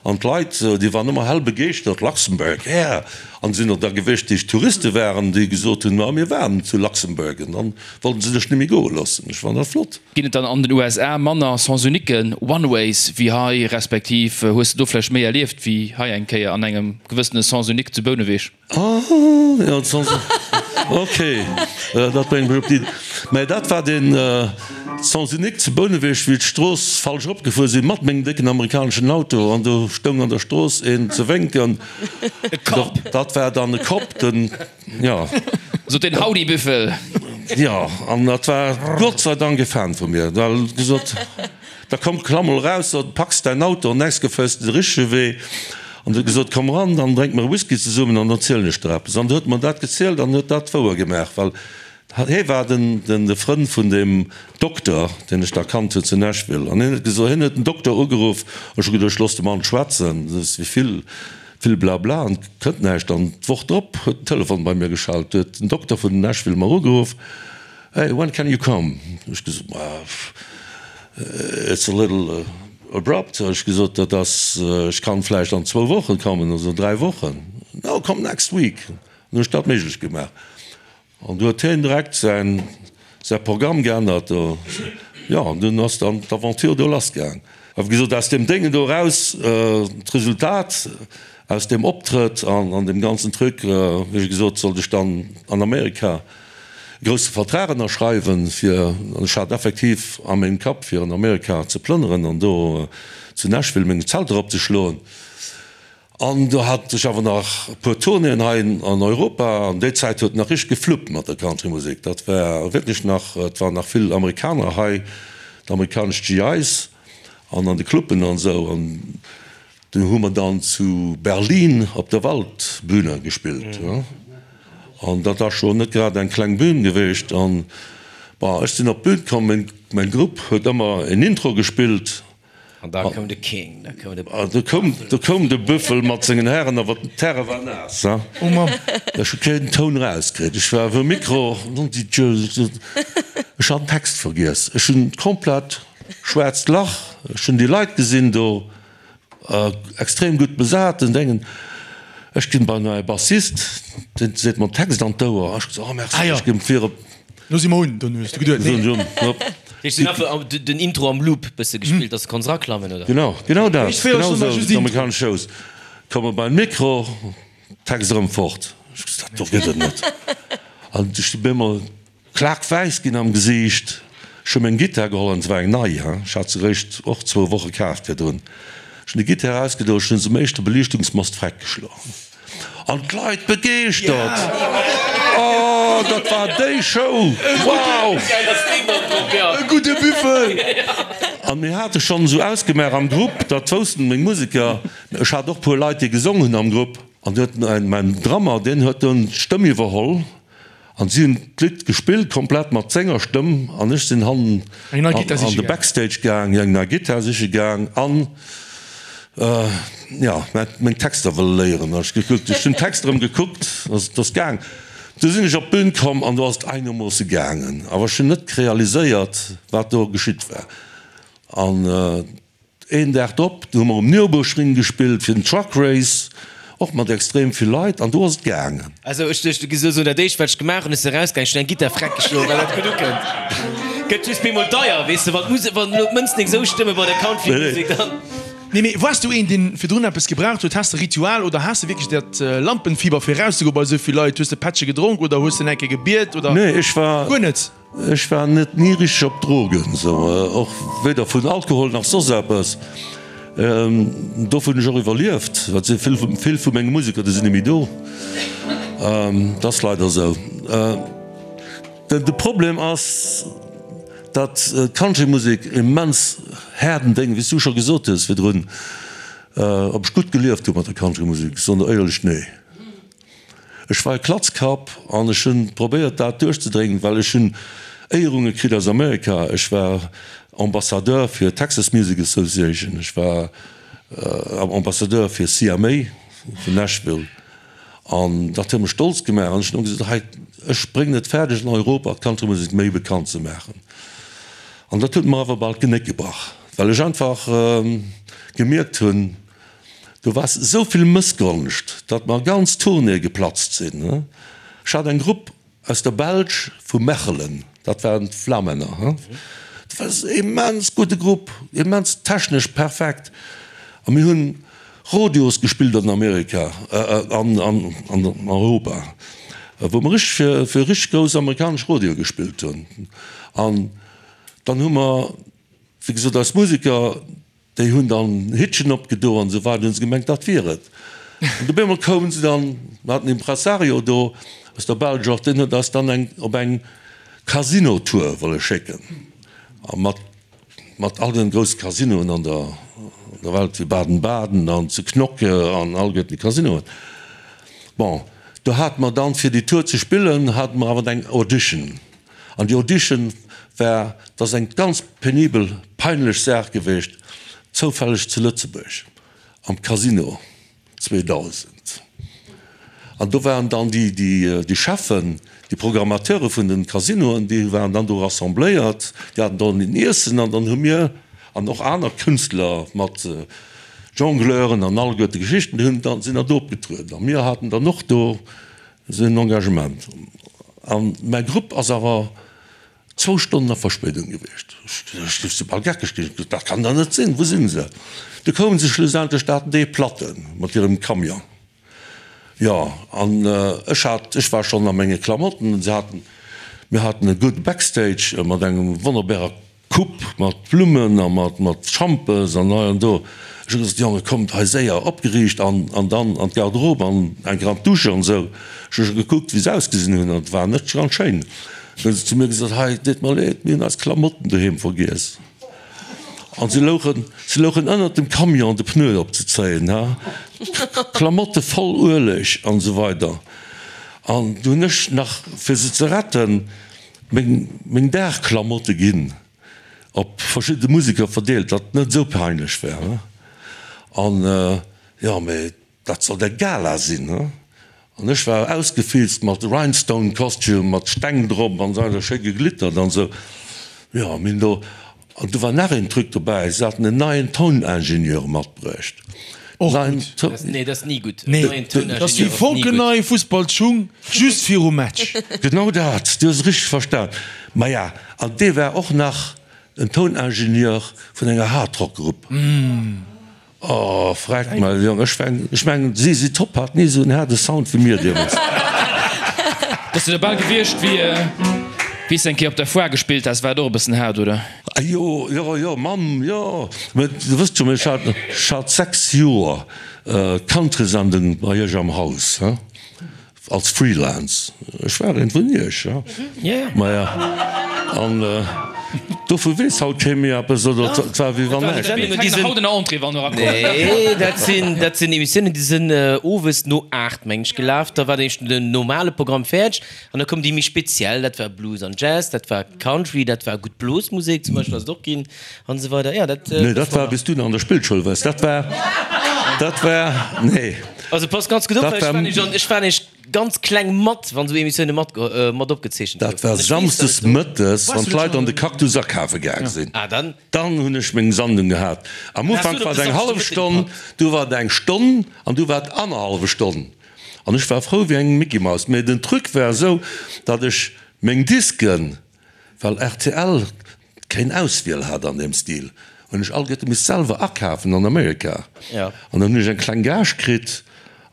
An d'Leit, déi waren ëmmer hell begeeschtert, Luxembourg, yeah. An et sinn och der gewiescht, déi Touriste waren, déi gesot hunn, ma mir waren zu Luxembourg. An dann wollten se sech net méi goe loossen. Ech fannen dat flott. Ginn et dann an den USA manner Sens-uniquen, One-Ways, wéi hei, respektiv hues de do vläicht méi erlieft wéi hei eng Kéier an engem gewëssene Sens-unique zu Bouneweg? Ah, jo, d'Sens, ok, dat bréngt mech op d'Iddi. Mä dat war den Sens unique zu Bouneweg, wéi d'Strooss falsch eropgefuer sinn, mat mengem décken amerikaneschen Auto, an do stoung an der Strooss een ze wénken. E Cop. Dat war dann e Cop, den, jo. Sot den Howdy Büffel. Jo, an dat war Gott sei Dank e Fan vu mir, well en huet gesot, Da komm, klamm mol eraus, da packs däin Auto an nächst geféiers de de richtege Wee. An huet gesot, Komm eran, dann drénke mer e Whisky zesummen an dann zielen ech der eppes. An du huet mer dat gezielt an huet dat wouer gemaach, well hie war den, den, de Frënn vun deem Dokter, deen ech da kannt hunn zu Nashville. An hien huet gesot, hien huet den Dokter ugeruff, ech hu geduecht, looss de Mann schwätzen, dat ass wéi vill, vill Blabla an et kënnt näischt. An d'Woch drop huet den Telefon bei mir geschellt, huet den Dokter vun Nashville mer ugeruff, Hey, when can you come? Hu ech gesot, Ma, it's a little abrupt, hu ech gesot, dat ass, ech kann vläicht an zwou Wochen kommen oder dräi Wochen. No, come next week. An hu ech dat méiglech gemaach. An du huet hien direkt säin, säi Programm geännert. Jo, an dunn ass dann d'Aventure do lassgaang. A wéi gesot, aus deem Déngen do eraus, d'Resultat. Aus deem Optrëtt an an deem ganzen Truc, wéi gesot, sollt ech dann an Amerika e grousse Vertrag ënnerschreiwen, fir, an ech hat effektiv a mengem Kapp, fir an Amerika ze plënneren an do zu Nashville meng Zelter opzeschloen. An do hat ech awer nach e puer Tournéeën hei an Europa, an déi Zäit huet nach richteg gefluppt mat der Countrymusek. Dat war wierklech nach, et waren nach vill Amerikaner hei, d'amerikanesch GIs an an de Cluben an esou. An Do hu mer dann zu Berlin op der Waldbühne gespillt. An dat ass scho net grad eng kleng Bühn geweecht. An, bon, ech sinn op d'Bühn komm, meng, mäin Grupp huet ëmmer en Intro gespillt. An da koum de King, da koum de An do koum, do koum de Büffel mat sengen Hären, awer den Terrain war naass, hein. Oh Mamm. Ech hu keen Toun erauskritt. Ech war um Mikro, ech hat den Text vergiess. Ech hunn komplett schwaarzt Lach. Ech hunn déi Leit gesinn do. Extrem gutt besat den Déngen. Ech ginn bei mäi Bassist, deen seet mer den Text an d'Ouer. Ech gesot, oh merci, ech ginn vir op. Lo si mer un, dunn hues de geduet, nee. Ech sinn einfach den Intro am Loop bësse gespillt, dass de konns eraklammen, oder? Genau, genau dat, genau esou, d'amerikanesch Shows. Komme beim Mikro, Text erëm fort. Ech gesot, dat do gëtt et net. An ech si bemol. Klaak-wäiss ginn am Gesiicht. Ech hu meng Gittar geholl, an et war eng nei, he, ech hat se eréischt och zwou Woche kaaft virdrun. Ech hunn déi Gittar erausgedoen, ech hunn se um éischte Beliichtungsmast freck geschloen. An d'Leit begeeschtert! Oh, dat war déi Show! Wow! E gudde Büffel! An mir hate schonn esou ausgemaach am Grupp, dat woussten meng Museker, ech hat och puer Leit, déi gesong hunn am Grupp, an du huet mäin Drummer, deen huet dunn d'Stëmm iwwerholl. An si hunn d'Lidd gespillt, komplett mat senger Stëmm, an ech sinn hannen an de Backstage gaang, eng nei Gittar siche gaang an, jo, meng Texter wëlle léieren. Ech gekuckt, ech hunn d'Texter erëm gekuckt, et ass gaang. Du sinn ech op d'Bün komm an do ass et einermoosse gaangen, awer ech hunn net realiséiert, wat do geschitt war. An Een Dag drop, do hu mer um Nürburgring gespillt fir den Truck Race, och mat extrem vill Leit, an do ass et gaangen. Also ech duecht, du giss elo soen, dat éischt wat ech gemaach hunn, ech sinn erausgaangen, ech hunn eng Gittar freck geschloen, well dat gutt ukënnt. Gëtt just bemol deier, weess de, wann d'Musek, wann elo d'Mënzen eng esou stëmme bei der Country-Musek, dann. Nee, mee wars du een, deen virdrun eppes gebraucht huet? Has de Ritual oder has de wierklech dat Lampenfieber fir erauszegoen bei esou vill Leit? Hues de Pättche gedronk oder hues de eng Kéier gebiet oder Nee, ech war. guer net? Ech war net ni richteg op Drogen, sou och weder vun Alkohol nach soss eppes. Dofir hunn ech och iwwerlieft, well se vill vill vu menge Museker, déi sinn net méi do. Dat ass leider esou. De Problem ass, datt d'Countrymusek immens haarden Déng, wéi s du scho gesot hues virdrun, ob ech gutt gelieft hu mat der Countrymusek, soen der éierlech, nee. Ech war e Klatzkapp an ech hunn probéiert dat duerchzedréngen, well ech hunn Éierunge kritt aus Amerika. Ech war Ambassadeur fir Texas Music Association, ech war Ambassadeur fir CMA vun Nashville an dat huet mech stolz gemaach an ech hunn ëmmer gesot, hei ech bréngen et fäerdeg an Europa d'Countrymusek méi bekannt ze maachen. An dat huet mer awer bal d'Genéck gebrach, well ech einfach gemierkt hunn, Do war esou vill Mëssgonscht, datt mer ganz Tournéeë geplatzt sinn. Ech hat eng Grupp aus der Belsch vu Mechelen, dat waren d'Flamänner. Dat war e immens gudde Grupp, immens technesch perfekt. A mir hunn Rodeos gespillt an Amerika an an Europa, wou mer richteg fir richteg grouss amerikanesch Rodeoe gespillt hunn. An dann hu mer, wéi gesot, eis Museker, Déi hunn dann Hittchen opgedo an esou weider, hunn se gemengt, dat wier et. An op eemol koumen se dann, mer haten en Impressario do aus der Belsch och, deen huet eis dann eng op eng Casino-Tour wolle schécken a mat mat all den grousse Casinoen an der an der Welt, wéi Baden-Baden an zu Knokke an alleguerten déi Casinoen. Bon, do hate mer dann, fir déi Tour ze spillen, hate mer awer eng Audition. An déi Audition war, dat ass eng ganz penibel, peinlech Saach geweecht, zoufälleg zu Lëtzebuerg am Casino 2000. An do waren dann déi, déi, déi Cheffen, déi Programmateure vun den Casinoen, déi waren dann do rassembléiert, déi haten dann en Iessen an dann hu mir an och aner Künstler mat Jongleuren an alleguerte Geschichten, déi hunn dann, sinn dann do opgetrueden. A mir haten dann och do esou en Engagement. An mäi Grupp ass awer. Zwou Stonnen a Verspéidung gewiescht. Ech si bal geckeg ginn. Ech gesot, dat kann dach net sinn, wou sinn se? Du koumen se schlussendlech, dat haten déi Platte mat hirem Camion. Jo, an ech hat, ech war schonn a menge Klamotten, se haten, mir haten e gudde Backstage mat engem wonnerbarer Coupe mat Blummen a mat mat Schampes an hei an do. Ech hu gesot, Jonge kommt hei séier, opgeriicht an an dann an d'Garderobe an eng Kéier an d'Dusche an esou. Ech hu scho gekuckt wéi se ausgesinn hunn an et war net ganz schéin. Dann hu se zu mir gesot, hei et deet mer leed, mir hunn eis Klamotten doheem vergiess. An se louchen, se louchen ënnert dem Camion de Pneu opzezéien, ha, Klamotte voll Ueleg an esou weider. An du hunn ech nach, fir se ze retten, meng, meng Dagklamotte ginn op verschidde Museker verdeelt, datt et net esou peinlech war, ha. An, jo, mee Dat sollt eng Gala sinn, he? An ech war ausgefilzt mat Rhinestone Costume, mat Steng drop an esou weider, schéi geglittert an esou. Jo, mir hunn do, an do war nach een Truc dobäi, se haten en neien Touningenieur matbruecht. Och Neien gutt. Toun. Nee, dat ass ni gutt. Nee, Neien dat ass wéi Touningenieur ass ni gutt. fonkelnei Fussballschung just virum Match. Genau dat, du hues et richteg verstan. Maja, an dee war och nach en Touningenieur vun enger Hardrock-Grupp. Oh freck mei Jong, ech mengen ech mengen ZZ Top hat ni esou en haarde Sound wéi mir deemools. Bass du da bal gewiescht wéi wéi s de eng Kéier op der Foire gespillt has, war et och e bëssen haart oder? Ah jo jo jo Mamm jo, mä du wësst jo ech hat ech hat 6 Joer Countrysendung bei iech am Haus he. Als Freelance, ech war eent vun iech, ja. Maja, an dovu weess haut kee méi eppes, oder et war wéi wann näischt wier. Nee, dat sinn, dat sinn Emissiounen, déi sinn owes no 8, meng ech, gelaf. Da war den den normale Programm fäerdeg an da koum déi méi speziell, dat war Blues an Jazz, dat war Country, dat war gutt Blosmusek zum Beispill ass et och ginn an esou weider. Ja, dat. Nee, dat war, wéi s du nach an der Spillschoul waars. Dat war, dat war, nee. Also passt ganz gutt op, well ech war nämlech an, ech war nämlech ganz kleng mat, wann esou Emissioune mat, mat opgezeechent Dat goufen. war An ech weess, samsdes datt et do. mëttes, wann d'Leit an de Cactus akafe gaang sinn. Ah, dann. Dann hunn ech meng Sandung gehat. Am Dann has Ufank du et war op et de eng hallef Samschdemëtteg Stonn, gepackt. du war et eng Stonn an du war et annerhallwe Stonn. An ech war frou wéi eng Mickey-Maus. Mee den Truc war esou, datt ech meng Disken, well rtl keng Auswiel hat an deem Stil, hunn ech alleguerte misst selwer akafen an Amerika. An dann hunn ech eng kleng Gage kritt,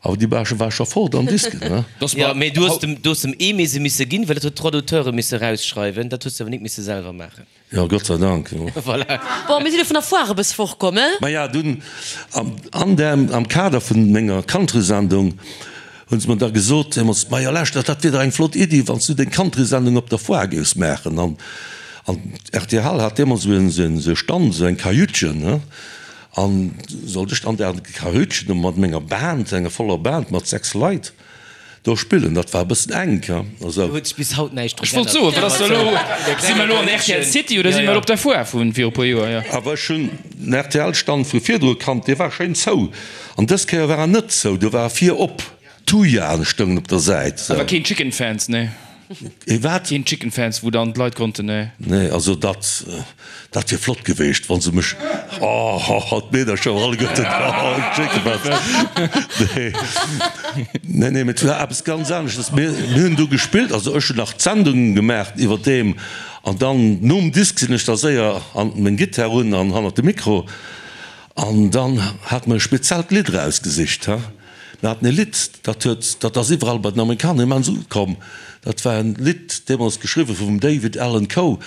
awer déi Gage war scho fort an Disken, ne? Jo, mee du hues dem, du hues dem Aimé se misse ginn, well dat huet d'Droits d'auteure misse rausschreiwen, dat hues de awer nik misse selwer maachen. Jo, Gott sei Dank, jo. Voilà. Bon, mir sinn elo vun der Foire e bësse fortkomm, he? Maja, dunn an der, am Kader vun menger Countrysendung hunn se mer da gesot deemools, Maja lauschter, dat wier dach eng flott Iddi, wann s du deng Countrysendung op der Foire géifs maachen. An, an rtl hat deemools esou en, esou en, esou e Stand, esou eng Kajütchen, ne, an sollt ech an där Kajütchen do mat menger Band, enger voller Band mat 6 Leit, do spillen. Dat war e bëssen enk, he, also. Do huet sech bis haut näischt dru Ech wollt geännert. soen, wat ass da elo? Si mer elo an rtl City oder si mer elo op der Foire vu viru puer Joer? Jo. Awer ech hunn den RTL-Stand vu virdru kannt, dee war schéin zou. An dës Kéier war en net zou, do war e vir op. Thujaen stoungen op der Säit. Sou. Awer keen Chicken Fans, nee. Ee wat? Keen Chicken Fans, wou dann d'Leit konnten, nee. Nee, also dat, dat wier flott geweecht, wa se mech, oh, d'Meedercher alleguerten, oh, Chicken Fans. Nee, nee, nee, mee et war eppes ganz aneschtes. Mir, mir hunn do gespillt, also ech hunn nach d'Sendung gemaach iwwerdeem an dann nom Disk sinn ech da séier an meng Gittar run an hannert de Mikro. An dann hate mer e speziellt Lidd erausgesicht. Mir haten e Lidd, dat huet, dat ass iwwerall bei den Amerikaner immens ukomm. Dat war en Lidd, deemools geschriwwe vum David Allan Coe,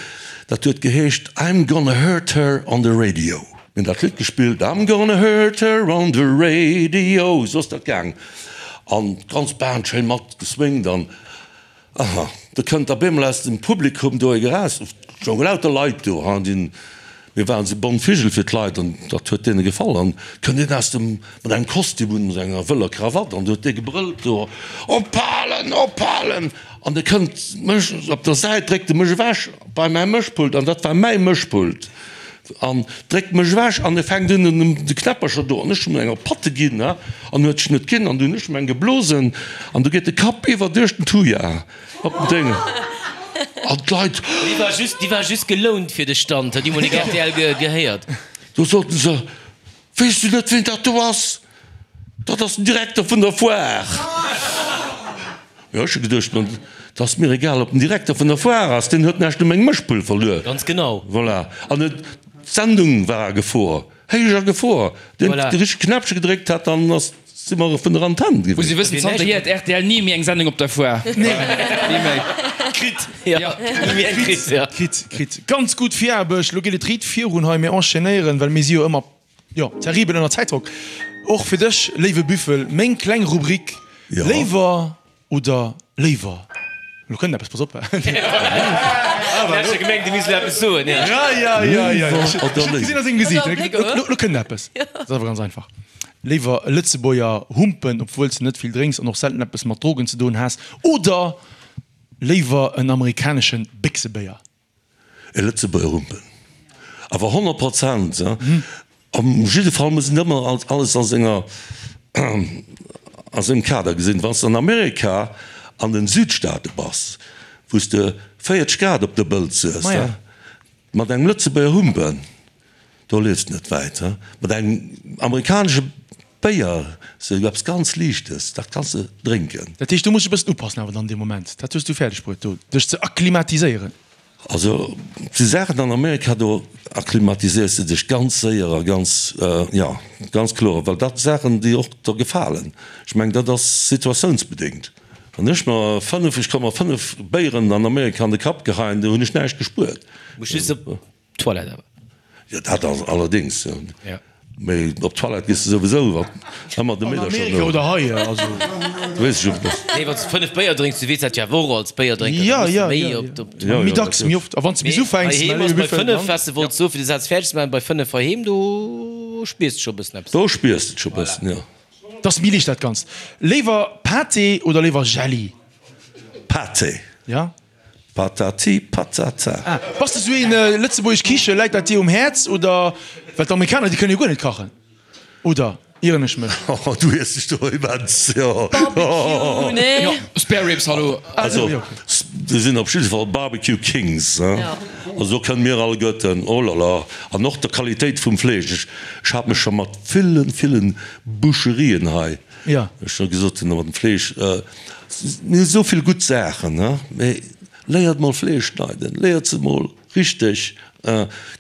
dat huet geheescht I'm gonna hurt her on the radio. Mir hunn dat Lidd gespillt, I'm gonna hurt her on the radio, esou ass dat gaang. An d'ganz Band schéin mat geswingt an. Aha, do kënnt op eemol aus dem Publikum do ee Geraas, et stounge lauter Leit do, ha, déi, mir waren esou bont Vigel fir d'Leit an dat huet deene gefall. An kënnt een aus dem, mat engem Kostüm un, mat enger wëller Krawatt an du huet dee gebrëllt do, Ophalen, ophalen! An de kënnt mech op der Säit, dréckt e mech ewech bei mäi Mëschpult, an dat war mäi Mëschpult, an dréckt mech ewech an e fänkt un un de Knäppercher do an ech hunn em eng op d'Patte ginn, ha, an huet sech net ginn an du hunn ech em eng geblosen an du geet de Kapp iwwer duerch den Thuja op den Déng an d'Leit. Déi war just, déi war just gelount fir de Stand, huet déi mol nik rtl gehéiert. Do soten se, Weess du net ween dat do ass? Dat ass den Direkter vun der Foire. Jo, ech hu geduecht, ma. Et ass mir egal, ob den Direkter vun der Foire ass, deen huet näischt u mengem Mëschpult verluer. Ganz genau. Voilà. An et, d'Sendung war a Gefor, héich a Gefor. Deen Voilà. de richtege Knäppche gedréckt hat, dann ass, si mer vun der Antenn Muss gewiescht. ee wëssen, zanterhier huet rtl ni méi eng Sendung op der Foire. Ni méi. Kritt. Ja, ni méi eng kritt, ja. Kritt, kritt. Ganz gutt Viraarbecht. Lo geet et riit virun hei. Mir enchaînéieren, well mir si jo ëmmer, jo, terribel ënner Zäitdrock. Och fir dech, léiwe Büffel, meng kleng Rubrik, Ja. Léiwer Oder léiwer, lo kënnt eppes, pass op. Awer ech hu gemengt, du misst elo eppes soen, ja. Ja, ja, ja, ja. Ech hu gesinn a sengem Gesiit, lo kënnt eppes. Dat ass awer ganz einfach. Léiwer e Lëtzebuerger humpen, obwuel s de net vill drénks an och selten eppes mat Drogen ze doen has, oder léiwer en amerikanesche Béchsebéier? E Lëtzebuerger Humpen. Awer 100 Prozent. Op jidde Fall muss een ëmmer alles a senger, a sengem Kader gesinn. Wann s de an Amerika an den Südstaate bass, wou s de 40 Grad op der Bëlz hues, mat engem Lëtzebuerger Humpen, Do liefs de net wäit, he? Mat engem amerikanesche Béier, sou eppes ganz Liichtes, dat kanns de drénken. Dat heescht, do muss ech e bëssen upassen awer dann dee Moment. Dat hues du fäerdeg bruet, do dech ze akklimatiséieren. Also, et si Saachen an Amerika, do akklimatiséiers de dech ganz séier a ganz, jo, ganz kloer, well dat Saachen, déi och der gefalen. Ech mengen, dat ass situatiounsbedéngt. Wann ech mer 5, ech ka mer 5 Béieren an Amerika an de Kapp geheien, do hunn ech näischt gespuert. Muss just op D'Toilette awer. Jo, dat ass allerdéngs, jo. Ja. Mee op d'Toilette gees de souwisou, wat ëmmer de An Meedercher Amerika no. oder hei, also. Weess ech och net. Nee, wann s de 5 Béier drénks, du weess dat jo awer och als Béierdrénker, Ja, da muss de ja, méi ja, op ja. d'Toilette. Ja, Méi ja, dacks, dat méi oft. A wann s de bis Mee ufänks, heiheem mä ass léiwe bei Büffel, 5, dann. wat s de wollts soen, fir de Saz fäerdeg ze maachen, bei 5 heiheem, do spiers de scho e bëssen eppes. Do spiers de et scho e bëssen, jo. 't ass méi liicht dat Ganzt. Léiwer Pâté oder léiwer Jelli? Pâté. Ja. Patati patata. Ah, bass de sou een lëtzebuergesch Kiche, läit dat dir um Häerz oder? Well d'Amerikaner déi kënne jo guer net kachen, oder ieren ech mech? Oh, du iers dech do immens, jo. Barbecue, nee? Jo, Spare Ribs, hallo. Also, se sinn op jidde Fall Barbecue Kings, hein. Also do kënne mir alleguerten, oh la la. An och der Qualitéit vum Fleesch. Ech, ech hat mech scho mat villen, villen Boucherien hei Ja. Ech hu gesot, mat dem Fleesch, mir hu sou vill gutt Saachen, mee léiert mol Fleesch schneiden, léiert se mol richteg,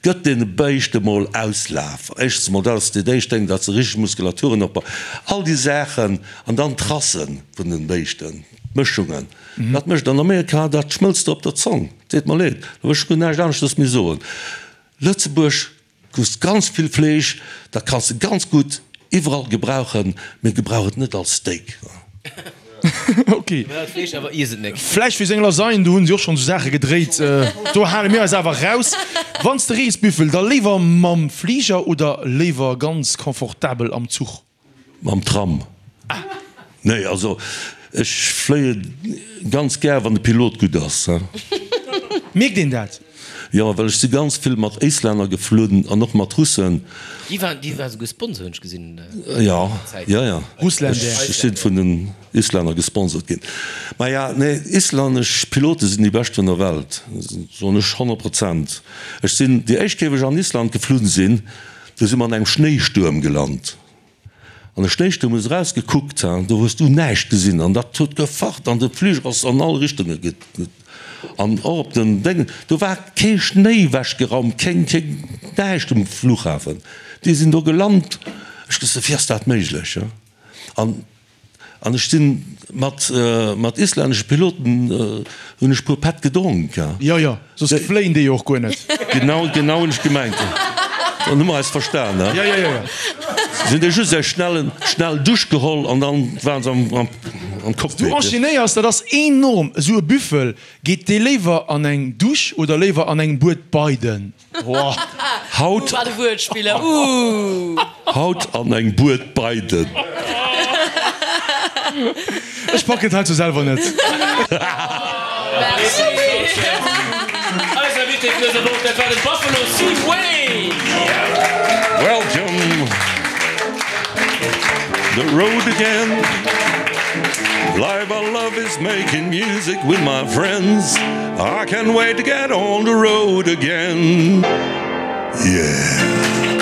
gëtt deene Béischte mol Auslaf. Éischtens mol, dat ass dat éischt Déng, datt se richteg Muskulaturen opbauen, all déi Saachen, an dann d'Rasse vun den Béischten, d'Mëschungen, dat mécht an Amerika, dat schmëlzt der op der Zong, deet mer leed, do wëll ech guer näischt aneschters méi soen. Lëtzebuerg Du hues ganz vill Fleesch, dat kanns de ganz gutt iwwerall gebrauchen, mee gebrauch et net als Steak. Ok. Vläicht fir seng Lasagne, do hunn si och schonn esou Saache gedréit. Do hale mir eis awer raus. Wann s de rees, Büffel, da léiwer mam Fliger oder léiwer ganz confortabel am Zuch? Mam Tram? Nee, also ech fléie ganz gär, wann de Pilot gutt ass. Mierkt een dat? Jo, well ech si ganz vill mat Éislänner geflunn an och mat Russen. Déi waren, déi war souguer Sponsor, hunn ech gesinn. Jo, jo, jo. Russländer. Ech si vun den Islänner gesponsort ginn. Maja, nee, islännesch Pilote sinn déi bescht vun der Welt, soen ech 100 Prozent. Ech sinn, déi éischt Kéier, wou ech an Island geflunn sinn, Do si mer an engem Schnéistuerm gelant. An de Schnéistuerm hues erausgekuckt, do hues du näischt gesinn an dat huet gefacht an de Fliger ass an all Richtunge ge. An och op den Déngen, do war kee Schnéi wechgeraumt, keng, keng, näischt um Flughafen. Déi sinn do gelant. Ech gesot, wéi ass dat méiglech? An An ech sinn mat mat islännesche Piloten hunn ech puer Pätt gedronk. Jo, jo, soss fléien déi jo och guer net. Genau, genau hunn ech gemengt. Dann hu mer eis verstan, he? Jo, jo, jo, jo. Si hunn déi just eng schnell, schnell Dusch geholl an dann waren se am, am, am Cockpit. Du enchaînéiers, dat ass enorm, esou e Büffel. Geet dee léiwer an eng Dusch oder léiwer an eng Bued Beiden? Haut Haut an eng Bued beiden. Ech packen et heizou selwer net. Eis Invité vun dëser Woch, dat war de Buffalo Steve Wayne. Welcome the road again Live I love is making music with my friends I can't wait to get on the road again Yeah.